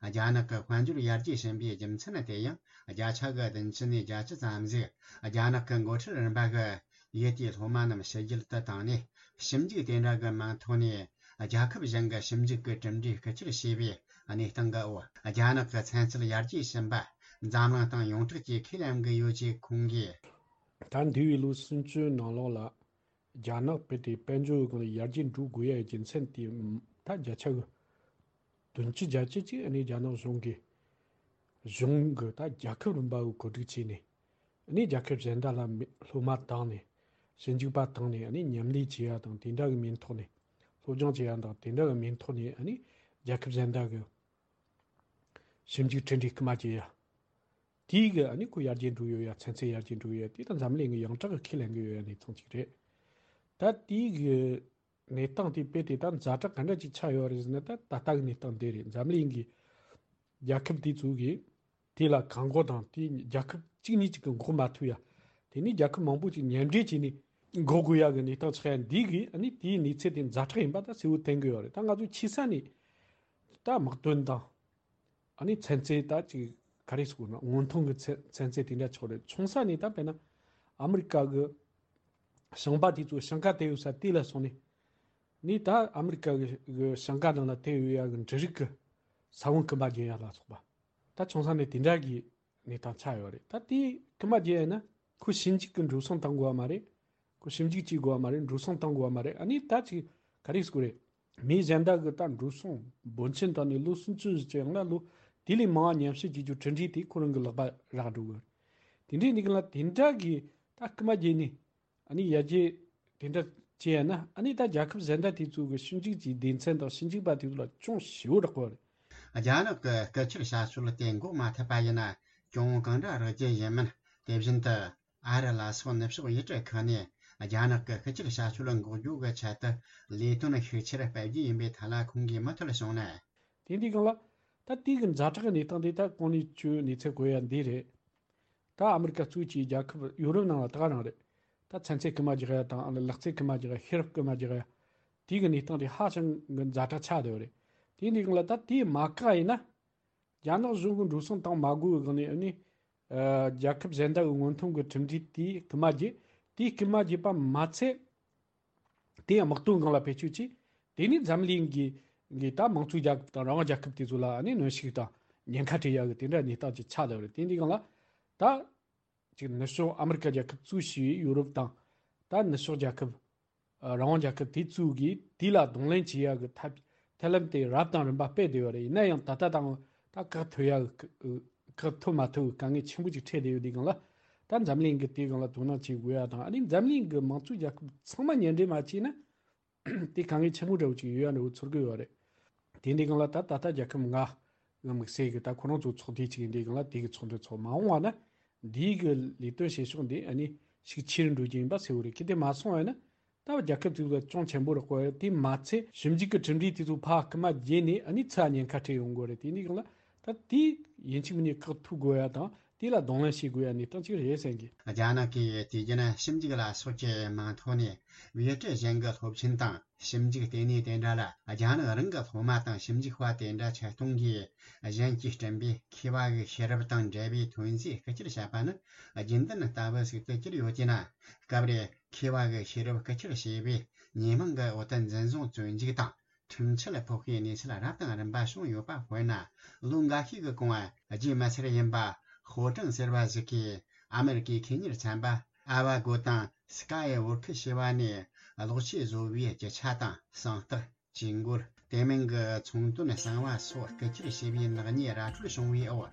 རྒྱ་ནག་གི་དཔལ་འབྱོར་ཡར་རྒྱས་ཕྱིན་པའི་རྒྱུ་མཚན་དེ་ཡང་བརྒྱ་ཆ་གི་བདུན་ཅུ་ནས་བརྒྱད་ཅུ་ཙམ་ཞིག་རྒྱ་ནག་གི་འགོ་ཁྲིད་རིམ་པ་གི་ཡུལ་དེའི་སློབ་མ་རྣམས་ཕྱི་རྒྱལ་དུ་བཏང་ནས། ཞིབ་འཇུག་དེ་འདྲ་གི་མིང་ཐོག་ནས་རྒྱལ་ཁབ་གཞན་གྱི་ཞིབ་འཇུག་གི་གྲུབ་འབྲས་རྐུ་འཁྱེར་བྱས་པའི་གནས་སྟངས་ཀྱི་འོག་རྒྱ་ནག་གི་ཚན་རྩལ་ཡར་རྒྱས་ཕྱིན་པ། འཛམ་གླིང་སྟེང་ཡོངས་གྲགས་ཀྱི་ཁས་ལེན་གྱི་ཡོད་ཅེས་ཁོང་གིས། ད་འདས་པའི་ལོ་སུམ་ཅུ་ནང་ལོགས་ལ་རྒྱ་ནག་བོད་དེ་དཔལ་འབྱོར་སྒང་ལ་ཡར་རྒྱས་འགྲོ་དགོས་ཡ་རྒྱུ་མཚན་དེ་ད་བརྒྱ་ཆ་གི་བདུན་ཅུ་བརྒྱད་ཅུ་ཅིག་ཨ་ནི་རྒྱ་ནག་གཞུང་གིས་གཞུང་གི་ད་རྒྱལ་ཁབ་རིམ་པ་གི་གོ་སྒྲིག་བྱས་ནས་ཨ་ནི་རྒྱལ་ཁབ་གཞན་དག་ལ་མི་སློབ་མ་བཏང་ནས་ཞིབ་འཇུག་པ་བཏང་ནས་ཨ་ནི་མཉམ་ལས་བྱེད་ཡ་དང་དེ་འདྲ་གི་མིང་ཐོག་ནས་སློབ་སྦྱོང་བྱེད་ཡ་དང་དེ་འདྲ་གི་མིང་ཐོག་ནས་ཨ་ནི་རྒྱལ་ཁབ་གཞན་དག་གི་ཞིབ་འཇུག་གྲུབ་འབྲས་སྐུལ་མ་བྱེད་ཡ། དེའི་གི་ཨ་ནི་ཁོ་ཡར་རྒྱས་འགྲོ་ཡོད་ཡ། ཚན་རྩལ་ཡར་རྒྱས་འགྲོ་ཡོད་ཡ། དེ་ད་འཛམ་གླིང་གི་ཡོངས་གྲགས་གི་ཁས་ལེན་གི་ཡོད་ཡ་གནས་སྟངས་ཅིག་རེད། ད་དེའི་གི་གནས་སྟངས་དེ་དཔེ་དེ་ད་ཛ་དྲག་ག་འདྲ་ཅིག་ཆགས་ཡོད་རེད་ཟེར་ན། ད་ད་ལྟ་གི་གནས་སྟངས་འདི་རེད། འཛམ་གླིང་གི་རྒྱལ་ཁབ་དེ་ཚོ་གིས་དེ་ལ་གང་མགོ་དང་དེ་རྒྱལ་ཁབ་གཅིག་གཉིས་ཅིག་གི་མགོ་མ་ཐུག་ཡ། དེ་ནས་རྒྱལ་ཁབ་མང་པོ་ཅིག་མཉམ་འབྲེལ་བྱས་ནས་འགོག་དགོས་ཡ་གི་གནས་སྟངས་ཆགས་ཡ་འདི་གིས་ཨ་ནི་དེའི་གནས་ཚུལ་དེ་ཛ་དྲག་ཡིན་པ་ད་གསལ་བོ་བསྟན་གི་ཡོད་རེད། ད་ང་ཚོ་ཆེ་ས་ནས་ད་དམག་དོན་དང་། ཨ་ནི་ཚན་རྩལ་ད་ཅིག་ག་རེ་ཟེར་དགོས་ན། སྔོན་ཐོན་གྱི་ཚན་ཚན་རྩལ་དེ་འདྲ་ཆགས་རེད། ཆུང་ས་ནས་ད་དཔེར་ན་ཨ་མི་རི་ཀ་གི་ཞིང་པ་དེ་ཚོ་ཞིང་ཁ་དེད་ཡོད་ས་དེ་ལ་སོང་ནས་ནི་ད་ཨ་མི་རི་ཀ་གི་གི་ཞིང་ཁ་ནང་ལ་དེད་ཡོད་ཡ་གི་འབྲུ་རིགས་ཀྱི་ས་བོན་སྐུལ་མ་རྒྱག་ཡ་ལ་སོགས་པ། ད་ཆུང་ས་ནས་དེ་འདྲ་གི་གནས་སྟངས་ཆགས་ཡོད་རེད། ད་དེ་སྐུལ་མ་རྒྱག་ཡ་ན་ཁོ་ཞིབ་འཇུག་གི་འགྲོ་སོང་བཏང་དགོས་པ་མ་རེད། ཁོ་ཞིབ་འཇུག་བྱེད་དགོས་པ་མ་རེད། འགྲོ་སོང་བཏང་དགོས་པ་མ་རེད། ཨ་ནི་ད་ཅིག་ག་རེ་ཟེར་དགོས་རེད། མི་གཞན་དག་གི་ད་འགྲོ་སོང་འབོར་ཆེན་བཏང་ནས་ལོ་སུམ་ཅུ་ཙམ་ཡང་ན་ལོ་དེ་ལས་མང་བ་ཉམས་ཞིབ་བྱེད་རྒྱུ་གྲུབ་འབྲས་དེ་ཁོ་རང་གི་ལག་པ་རག་འགྲོ་གི་རེད། དེ་འདྲའི་ནི་གི་ལ་དེ་འདྲ་གི་ད་སྐུལ་མ་རྒྱག་ནས་ཨ་ནི་ཡར་རྒྱས་དེ་འདྲ་བྱས་ཡ་ན། ཨ་ནི་ད་རྒྱལ་ཁབ་གཞན་དག་དེ་ཚོ་གི་ཞིབ་འཇུག་གི་སྡེ་ཚན་དང་ཞིབ་འཇུག་པ་དེ་ཚོ་ལ་ཅུང་ཞེ་པོ་རག་གི་རེད། རྒྱ་ནག་གི་སྐུ་ཁྲིད་བྱ་སྤྱོད་དེ་འགོག་མ་ཐུབ་པ་ཡིན་ན་གྱོང་གང་འདྲ་རག་རྒྱུ་ཡིན་མིན། དེ་བཞིན་དུ། ཨ་རི་ལ་སོགས་ནུབ་ཕྱོགས་ཡུལ་གྲུ་ཁག་ནས་རྒྱ་ནག་གི་སྐུ་ཁྲིད་བྱ་སྤྱོད་འགོག་རྒྱུ་གི་ཆེད་དུ་ལས་དོན་ཤུགས་ཆེར་སྤེལ་རྒྱུ་ཡིན་པའི་ཐད་ལ་ཁོང་གིས་མུ་མཐུད་གསུངས་ན། དེ་འདི་སྒང་ལ་ད་དེའི་གི་ཛ་དྲག་གི་གནས་སྟངས་དེ་ད་གོང་ནས་ཁྱོས་གནས་ཚུལ་གོ་ཡ་འདི་རེད། ད་ཨ་མི་རི་ཀ་གཙོས་ཀྱི་རྒྱལ་ཁབ་ཡོ་རོབ་ནང་ལ་ད་ག་རང་རེད། ད་ཚན་རྩལ་སྐུལ་མ་རྒྱག་ཡ་དང་ལག་རྩལ་སྐུལ་མ་རྒྱག་ཡ། ཤེས་རབ་སྐུལ་མ་རྒྱག་ཡ། དེའི་གི་གནས་སྟངས་དེ་ཧ་ཅང་གི་ཛ་དྲག་ཆགས་བསྡད་ཡོད་རེད། དེ་འདི་སྒང་ལ་ད་དེ་མ་བཀག་ཡིན་ན། རྒྱ་ནག་གཞུང་གི་འགྲོ་སོང་བཏང་མ་དགོས་པའི་སྒང་ནས་ཨ་ནི། ཨ། རྒྱལ་ཁབ་གཞན་དག་གི་སྔོན་ཐོན་གྱི་གྲུབ་འབྲས་དེ་སྐུལ་མ་རྒྱག་དེ་སྐུལ་མ་རྒྱག་པ་མ་ཚད། དེ་ཡང་དམག་དོན་སྒང་ལ་བེད་སྤྱོད་བྱས། དེ་ནས་འཛམ་གླིང་གི་གི་ད་དམངས་གཙོའི་རྒྱལ་ཁབ་དང་རང་དབང་རྒྱལ་ཁབ་དེ་ཚོ་ལ་ཨ་ནི་གནོན་ཤུགས་དང་ཉེན་ཁ་སྤྲད་ཡག་གི་དེ་འདྲ་གནས་སྟངས་ཅིག་ཆགས་བསྡད་ཡོད་རེད། དེ་འདི་སྒང་ལ་ད་ཅིག་ནུབ་ཕྱོགས་ཨ་མི་རི་ཀ་རྒྱལ་ཁབ་གཙོས་བྱས་ཡོ་རོབ་དང་། ད་ནུབ་ཕྱོགས་རྒྱལ་ཁབ། ཨ། རང་དབང་རྒྱལ་ཁབ་དེ་ཚོ་གིས་དེ་ལ་གདོང་ལེན་བྱེད་ཡག་གི་ཐབས་ཐབས་ལམ་དེ་རབ་དང་རིམ་པ་སྤེལ་བསྡད་ཡོད་རེད། ཡིན་ན་ཡང་ད་ལྟ་དང་ད་བཀག་ཐུབ་ཡག་གི་བཀག་ཐུབ་མ་ཐུབ་ཀྱི་དཀའ་ངལ་ཆེན་པོ་ཅིག་འཕྲད་བསྡད་ཡོད་དུས་སྒང་ལ། ད་འཛམ་གླིང་གིས་དེའི་སྒང་ལ་དོ་སྣང་བྱེད་དགོས་ཡ་དང་། ཨ་ནི་འཛམ་གླིང་གི་དམངས་གཙོའི་རྒྱལ་ཁབ་ཚང་མ་མཉམ་འབྲེལ་མ་བྱས་ན། དེ་དཀའ་ངལ་ཆེན་པོ་འདྲ་བོ་ཅིག་ཡོད་ཡ་འདྲ་བོ་ཚོར་གི་ཡོད་རེད། དེ་འདི་སྒང་ལ་ད་ད་ལྟ་རྒྱལ་ཁབ་ལྔ་གི་དམིགས་བསལ་གྱི་ད་ཁོ་རང་ཚོ་ཚོགས་སྡེ་ཅིག་ཡིན་དུས་སྒང་ལ་དེ་གི་ཚོགས་འདུ་ཚོགས་མ་འོངས་པ་ན། འདིའི་གི་ལས་དོན་བྱེད་ཕྱོགས་འདི་ཨ་ནི་ཤུགས་ཆེ་རུ་འགྲོ་རྒྱུ་ཡིན་པ་གསལ་བོ་རེད། གལ་ཏེ་མ་སོང་བ་ཡིན་ན། ད་རྒྱལ་ཁབ་དེ་ཚོ་ལ་ཅུང་ཆེན་པོ་རག་གོ། དེ་མ་ཚད་ཞིབ་འཇུག་གི་གྲུབ་འབྲས་དེ་ཚོ་ཕར་སྐུལ་མ་རྒྱག་ནས་ཨ་ནི་ཚུར་ཉེན་ཁ་འཕྲད་ཡོང་གི་རེད། དེ་འདི་སྒང་ལ་ད་དེ་ཡིན་གཅིག་མིན་གཉིས་བཀག་ཐུབ་དགོས་ཡ་དང་། དེ་ལ་གདོང་ལེན་བྱེད་དགོས་ཡ་གནས་སྟངས་ཅིག་རེད་བསམ་གི། རྒྱ་ནག་གིས་དུས་རྒྱུན་ཞིབ་འཇུག་ལ་སོགས་ཀྱི་མིང་ཐོག་ནས་ཡུལ་གྲུ་གཞན་གྱི་སློབ་ཆེན་དང་ཞིབ་འཇུག་ལྟེ་གནས་དེ་འདྲ་ལ་རྒྱ་ནག་རང་གི་སློབ་མ་དང་ཞིབ་འཇུག་པ་དེ་འདྲ་ཆེད་གཏོང་གིས་གཞན་གྱིས་བསྐྲུན་པའི་མཁས་པ་གི་ཤེས་རབ་དང་འབྲེལ་བའི་ཐོན་རྫས་རྐུ་འཁྱེར་བྱས་པ་ནི་རྒྱུན་ལྡན་ལྟ་བུ་ཞིག་ཏུ་གྱུར་ཡོད་ཀྱི་ན། སྐབས་རེ་མཁས་པ་གི་ཤེས་རབ་རྐུ་འཁྱེར་བྱས་པའི་ཉེས་མིང་གི་འོག་ཏུ་འཛིན་བཟུང་བཙོན་འཇུག་དང་ཁྲིམས་ཆད་ཕོག་པའི་གནས་ཚུལ་རབ་དང་རིམ་པ་བྱུང་ཡོད་པ། དཔེར་ན། ལོ་འགའ་ཤས་ཀྱི་གོང་བ་རྒྱུས་མི་ཚར་ཡིན་པ་ཧོ་ཀྲང་ཟེར་བ་ཞིག་གིས་ཨ་མེ་རི་ཀའི་ཁེ་གཉེར་ཚན་པ་ཨ་ཝ་གོ་དང་སི་ཀ་ཡི་ཝོར་ཁི་ཞེས་པ་ནས་གློག་ཆས་བཟོ་བའི་རྒྱུ་ཆ་དང་། གསང་རྟགས། ཇུས་འགོད། དེ་མིན་གྱི་ཚོང་དོན་གསང་བ་སོགས་རྐུ་འཁྱེར་བྱས་པའི་ནག་ཉེས་ར་འཕྲོད་བྱུང་བའི་འོག་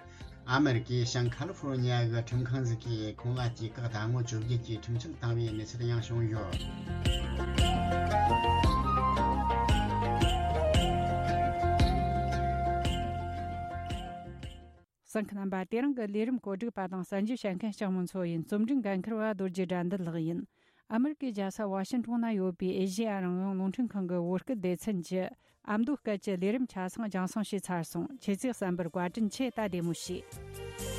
ཨ་མེ་རི་ཀའི་ཤང་ཁ་ལི་ཧྥོ་རོ་ཉི་ཡ་གི་ཁྲིམས་ཁང་ཞིག་གིས་ཁོང་ལ་དུས་བཀག་ཟླ་ངོ་བཅོ་བརྒྱད་ཀྱི་ཁྲིམས་ཆད་བཏང་བའི་གནས་ཚུལ་ཡང་བྱུང་ཡོད། གསན་མཁན་རྣམ་པ། དེ་རིང་གི་ལས་རིམ་གོ་སྒྲིག་པ་དང་གསན་རྒྱུ་བྱེད་མཁན་ལྕགས་མོ་མཚོ་ཡིན། རྩོམ་སྒྲིག་འགན་འཁུར་བ་རྡོ་རྗེ་དགྲ་འདུལ་ལགས་ཡིན། ཨ་མེ་རི་ཀའི་རྒྱལ་ས་ཝ་ཤིན་ཊོན་ན་ཡོད་པའི་ཨེ་ཤེ་ཡ་རང་དབང་རླུང་འཕྲིན་ཁང་གི་བོད་སྐད་སྡེ་ཚན་གྱི་ཨ་མདོ་སྐད་ཀྱི་ལས་རིམ་ཆ་ཚང་རྒྱང་སྲིང་བྱས་ཚར་སོང་། ཁྱེད་ཚོས་གསན་པར་བཀའ་དྲིན་ཆེ། ད་བདེ་མོ་བྱོས།